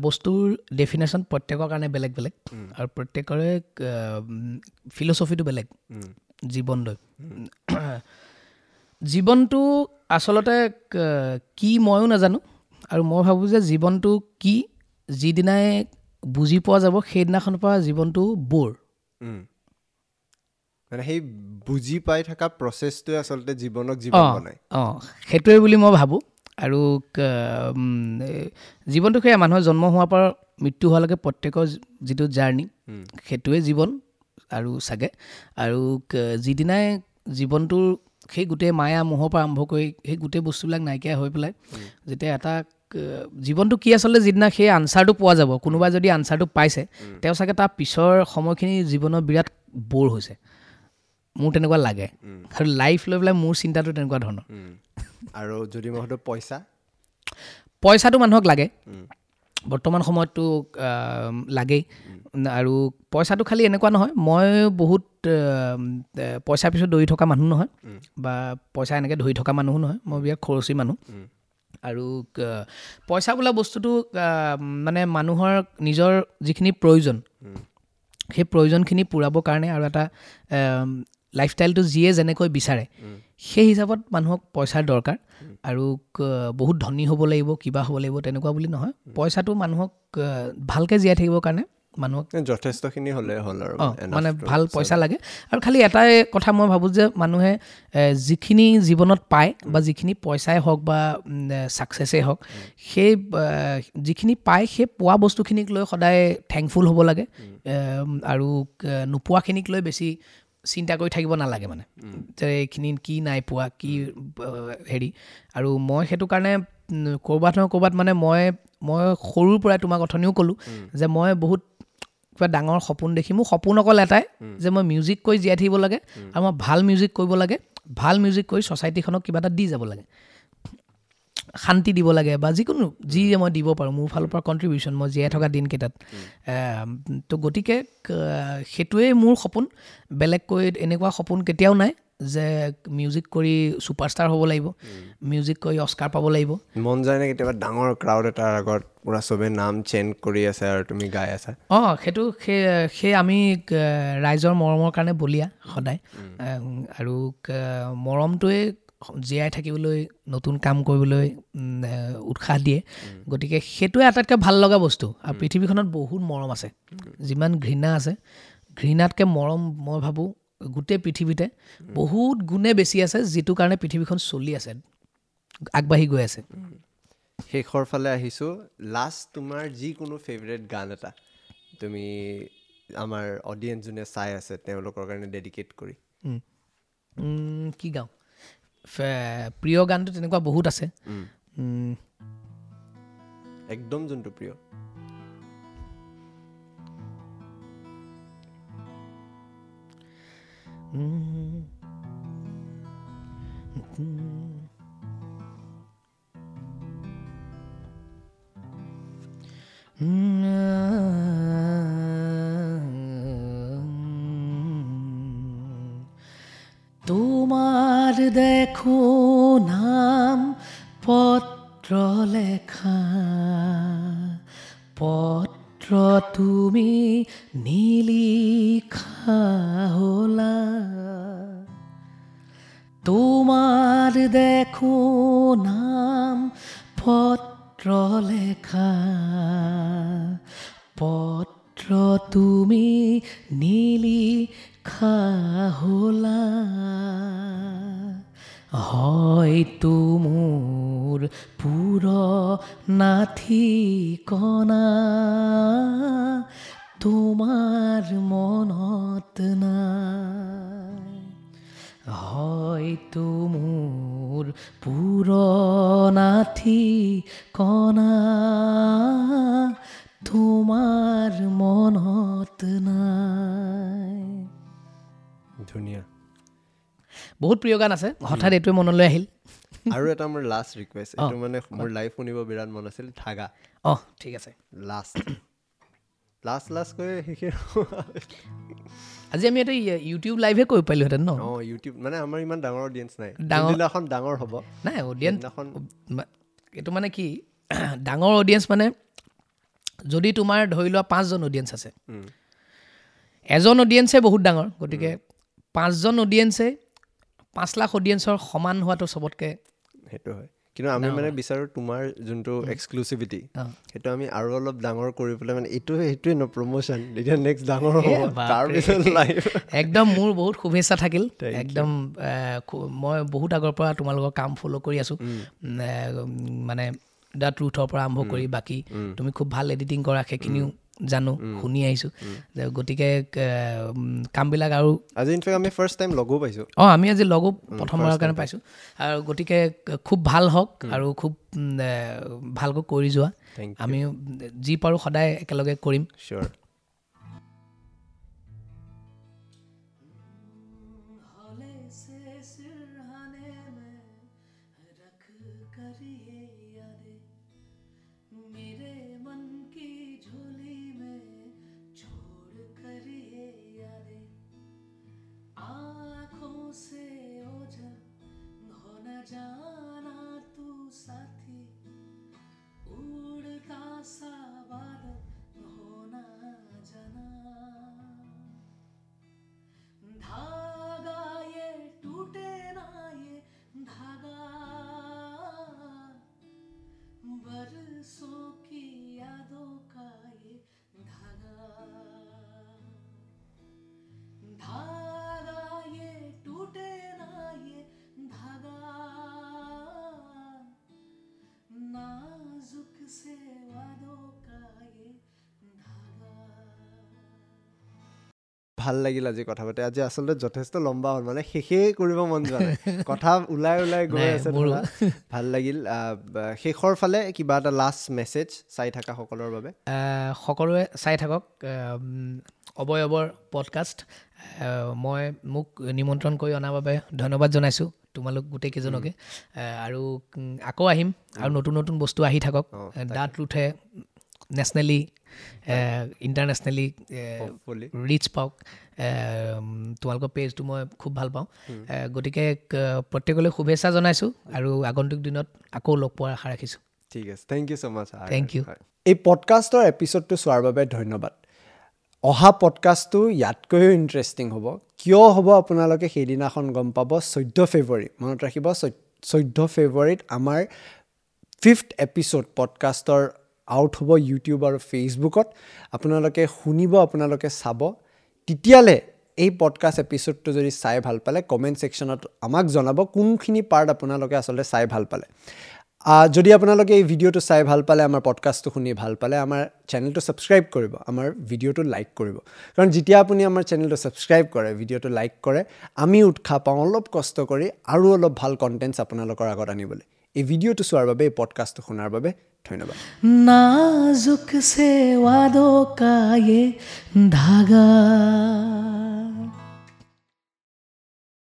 বস্তুৰ ডেফিনেশ্যন প্ৰত্যেকৰ কাৰণে বেলেগ বেলেগ আৰু প্ৰত্যেকৰে ফিলচফিটো বেলেগ। জীৱনলৈ জীৱনটো আচলতে কি ময়ো নাজানো, আৰু মই ভাবোঁ যে জীৱনটো কি যিদিনাই বুজি পোৱা যাব সেইদিনাখনৰ পৰা জীৱনটো ব'ৰ। মানে সেই বুজি পাই থকা প্ৰচেছটোৱে আচলতে জীৱনক জীৱন বনায়। অঁ, সেইটোৱে বুলি মই ভাবোঁ। আৰু জীৱনটো সেয়া মানুহৰ জন্ম হোৱাৰ পৰা মৃত্যু হোৱালৈকে প্ৰত্যেকৰ যিটো জাৰ্ণি সেইটোৱে জীৱন আৰু চাগে। আৰু যিদিনাই জীৱনটোৰ সেই গোটেই মায়া মোহৰ পৰা আৰম্ভ কৰি সেই গোটেই বস্তুবিলাক নাইকিয়া হৈ পেলাই যেতিয়া এটা জীৱনটো কি আচলতে যিদিনা সেই আনচাৰটো পোৱা যাব, কোনোবাই যদি আনচাৰটো পাইছে তেওঁ চাগে তাৰ পিছৰ সময়খিনি জীৱনৰ বিৰাট ব'ৰ হৈছে, মোৰ তেনেকুৱা লাগে। আৰু লাইফ লৈ পেলাই মোৰ চিন্তাটো তেনেকুৱা ধৰণৰ। আৰু যদি মই সুধো পইচা, পইচাটো মানুহক লাগে বৰ্তমান সময়ততো লাগেই। আৰু পইচাটো খালি এনেকুৱা নহয়, মই বহুত পইচাৰ পিছত দৌৰি থকা মানুহ নহয় বা পইচা এনেকৈ ধৰি থকা মানুহো নহয়, মই বিৰাট খৰচী মানুহ। আৰু পইচা বোলা বস্তুটো মানে মানুহৰ নিজৰ যিখিনি প্ৰয়োজন সেই প্ৰয়োজনখিনি পূৰাবৰ কাৰণে আৰু এটা লাইফষ্টাইলটো যিয়ে যেনেকৈ বিচাৰে সেই হিচাপত মানুহক পইচাৰ দৰকাৰ। আৰু বহুত ধনী হ'ব লাগিব কিবা হ'ব লাগিব তেনেকুৱা বুলি নহয়, পইচাটো মানুহক ভালকৈ জীয়াই থাকিবৰ কাৰণে মানুহক যথেষ্টখিনি হ'লে হ'ল আৰু মানে ভাল পইচা লাগে। আৰু খালি এটাই কথা মই ভাবোঁ যে মানুহে যিখিনি জীৱনত পায় বা যিখিনি পইচাই হওক বা ছাকচেছেই হওক, সেই যিখিনি পায় সেই পোৱা বস্তুখিনিক লৈ সদায় থেংকফুল হ'ব লাগে আৰু নোপোৱাখিনিক লৈ বেছি চিন্তা কৰি থাকিব নালাগে। মানে যে এইখিনি কি নাই পোৱা কি হেৰি। আৰু মই সেইটো কাৰণে ক'ৰবাত নহয় ক'ৰবাত মানে মই সৰুৰ পৰাই তোমাক অথনিও ক'লোঁ যে মই বহুত কিবা ডাঙৰ সপোন দেখি, মোৰ সপোন অকল এটাই যে মই মিউজিক কৰি জীয়াই থাকিব লাগে আৰু মই ভাল মিউজিক কৰিব লাগে, ভাল মিউজিক কৰি ছ'চাইটিখনক কিবা এটা দি যাব লাগে, শান্তি দিব লাগে বা যিকোনো যি মই দিব পাৰোঁ মোৰ ফালৰ পৰা কণ্ট্ৰিবিউশ্যন মই জীয়াই থকা দিনকেইটাত। তো গতিকে সেইটোৱেই মোৰ সপোন, বেলেগকৈ এনেকুৱা সপোন কেতিয়াও নাই যে মিউজিক কৰি ছুপাৰষ্টাৰ হ'ব লাগিব, মিউজিক কৰি অস্কাৰ পাব লাগিব। মন যায় নে কেতিয়াবা ডাঙৰ ক্ৰাউড এটাৰ আগত পূৰা চবে নাম চেঞ্জ কৰি আছে আৰু তুমি গাই আছা? অঁ, সেইটো সেই আমি ৰাইজৰ মৰমৰ কাৰণে বলিয়া সদায়, আৰু মৰমটোৱে জীয়াই থাকিবলৈ, নতুন কাম কৰিবলৈ উৎসাহ দিয়ে। গতিকে সেইটোৱে আটাইতকৈ ভাল লগা বস্তু। আৰু পৃথিৱীখনত বহুত মৰম আছে, যিমান ঘৃণা আছে, ঘৃণাতকৈ মৰম মই ভাবোঁ গোটেই পৃথিৱীতে বহুত গুণে বেছি আছে, যিটো কাৰণে পৃথিৱীখন চলি আছে, আগবাঢ়ি গৈ আছে। শেষৰ ফালে আহিছোঁ, লাষ্ট তোমাৰ যিকোনো ফেভৰেট গান এটা তুমি আমাৰ অডিয়েঞ্চ যোনে চাই আছে তেওঁলোকৰ কাৰণে ডেডিকেট কৰি। কি গাওঁ? প্ৰিয় গানটো তেনেকুৱা বহুত আছে, একদম যোনটো প্ৰিয়। তোমাৰ দেখো নাম পত্ৰ লেখা, পত্ৰ তুমি নিলিখা হলা। তোমাৰ দেখো নাম পত্ৰ লেখা, পত্ৰ তুমি নিলিখা হলা। হয়তো মোৰ পুৰণা ঠিকনা তোমাৰ মনত নাই, হয়তো মোৰ পুৰণা ঠিকনা তোমাৰ মনত নাই। ধুনীয়া, বহুত প্ৰিয় গান আছে, হঠাৎ এইটোৱে মনলৈ আহিল। আৰু এটা মোৰ লাষ্ট ৰিকুৱেষ্ট, এইটো মানে মোৰ লাইভ শুনিব বিৰাট মন আছিল, ধাগা। অঁ, ঠিক আছে। লাষ্ট লাষ্ট লাষ্ট কৈ শেষে আজি আমি এটা ইউটিউব লাইভে কৰিব পাৰিলোহেঁতেন ন? অঁ, ইউটিউব মানে আমাৰ ইমান ডাঙৰ অডিয়েঞ্চ নাই, যোনদিনাখন ডাঙৰ হ'ব নাই অডিয়েঞ্চ, এইটো মানে কি ডাঙৰ অডিয়েঞ্চ মানে যদি তোমাৰ ধৰি লোৱা 5জন অডিয়েঞ্চ আছে, এজন অডিয়েঞ্চে বহুত ডাঙৰ, গতিকে 5জন অডিয়েঞ্চে 5 লাখ অডিয়েঞ্চৰ সমান হোৱাটো চবতকৈ সেইটো হয়। কিন্তু আমি মানে বিচাৰোঁ তোমাৰ যোনটো এক্সক্লুচিভিটি সেইটো আমি আৰু অলপ ডাঙৰ কৰি পেলাই, মানে এইটো সেইটোৱে ন প্ৰমোশ্যন, তেতিয়া নেক্সট ডাঙৰ হ'ব, তাৰপিছত লাইভ। একদম মোৰ বহুত শুভেচ্ছা থাকিল। একদম মই বহুত আগৰ পৰা তোমালোকৰ কাম ফ'ল' কৰি আছোঁ, মানে the ট্ৰুথৰ পৰা আৰম্ভ কৰি বাকী তুমি খুব ভাল এডিটিং কৰা, সেইখিনিও জানো, শুনি আহিছোঁ। গতিকে কামবিলাক আৰু আজি ইনফেক্ট আমি ফাৰ্ষ্ট টাইম লগো পাইছোঁ। অঁ, আমি আজি লগো প্ৰথমবাৰৰ কাৰণে পাইছোঁ। আৰু গতিকে খুব ভাল হওক আৰু খুব ভালকৈ কৰি যোৱা, আমি যি পাৰোঁ সদায় একেলগে কৰিম। চিয়'ৰ। जाना तू साथी उड़ता सा बादल होना जाना, धागा ये टूटे ना ये धागा, बरसों की यादों का ये धागा, धागा ये टूटे ना ये धागा, नाजुक से वादों का ये धागा। ভাল লাগিল আজি কথা পাতি। আজি আচলতে যথেষ্ট লম্বা হ'ল, মানে শেষেই কৰিব মন যোৱা নাই, কথা ওলাই ওলাই গৈ আছে। ভাল লাগিল। শেষৰ ফালে কিবা এটা লাষ্ট মেছেজ চাই থকা সকলৰ বাবে? সকলোৱে চাই থাকক অৱয়বৰ পডকাষ্ট। মই মোক নিমন্ত্ৰণ কৰি অনাৰ বাবে ধন্যবাদ জনাইছোঁ তোমালোক গোটেইকেইজনকে, আৰু আকৌ আহিম আৰু নতুন নতুন বস্তু আহি থাকক। The ট্ৰুথে নেশ্যনেলি, ইণ্টাৰনেশ্যনেলি ৰিচ পাওক। তোমালোকৰ পেজটো মই খুব ভাল পাওঁ। গতিকে প্ৰত্যেকলৈ শুভেচ্ছা জনাইছোঁ আৰু আগন্তুক দিনত আকৌ লগ পোৱাৰ আশা ৰাখিছোঁ। ঠিক আছে, thank you so much. Thank you. এই পডকাষ্টৰ এপিছ'ডটো চোৱাৰ বাবে ধন্যবাদ। অহা পডকাষ্টটো ইয়াতকৈও ইণ্টাৰেষ্টিং হ'ব। কিয় হ'ব আপোনালোকে সেইদিনাখন গম পাব। 14 ফেব্ৰুৱাৰী, মনত ৰাখিব, 14 ফেব্ৰুৱাৰীত আমাৰ 5th episode পডকাষ্টৰ আউট হ'ব ইউটিউব আৰু ফেচবুকত। আপোনালোকে শুনিব, আপোনালোকে চাব। তেতিয়ালৈ এই পডকাষ্ট এপিছ'ডটো যদি চাই ভাল পালে কমেণ্ট ছেকশ্যনত আমাক জনাব কোনখিনি পাৰ্ট আপোনালোকে আচলতে চাই ভাল পালে। যদি আপোনালোকে এই ভিডিঅ'টো চাই ভাল পালে, আমাৰ পডকাষ্টটো শুনি ভাল পালে, আমাৰ চেনেলটো ছাবস্ক্ৰাইব কৰিব, আমাৰ ভিডিঅ'টো লাইক কৰিব। কাৰণ যেতিয়া আপুনি আমাৰ চেনেলটো ছাবস্ক্ৰাইব কৰে, ভিডিঅ'টো লাইক কৰে, আমি উৎসাহ পাওঁ অলপ কষ্ট কৰি আৰু অলপ ভাল কণ্টেণ্টছ আপোনালোকৰ আগত আনিবলৈ। এই ভিডিঅ'টো চোৱাৰ বাবে, এই পডকাষ্টটো শুনাৰ বাবে ধন্যবাদ। নাজুক সে ৱাদো কা য়ে ধাগা।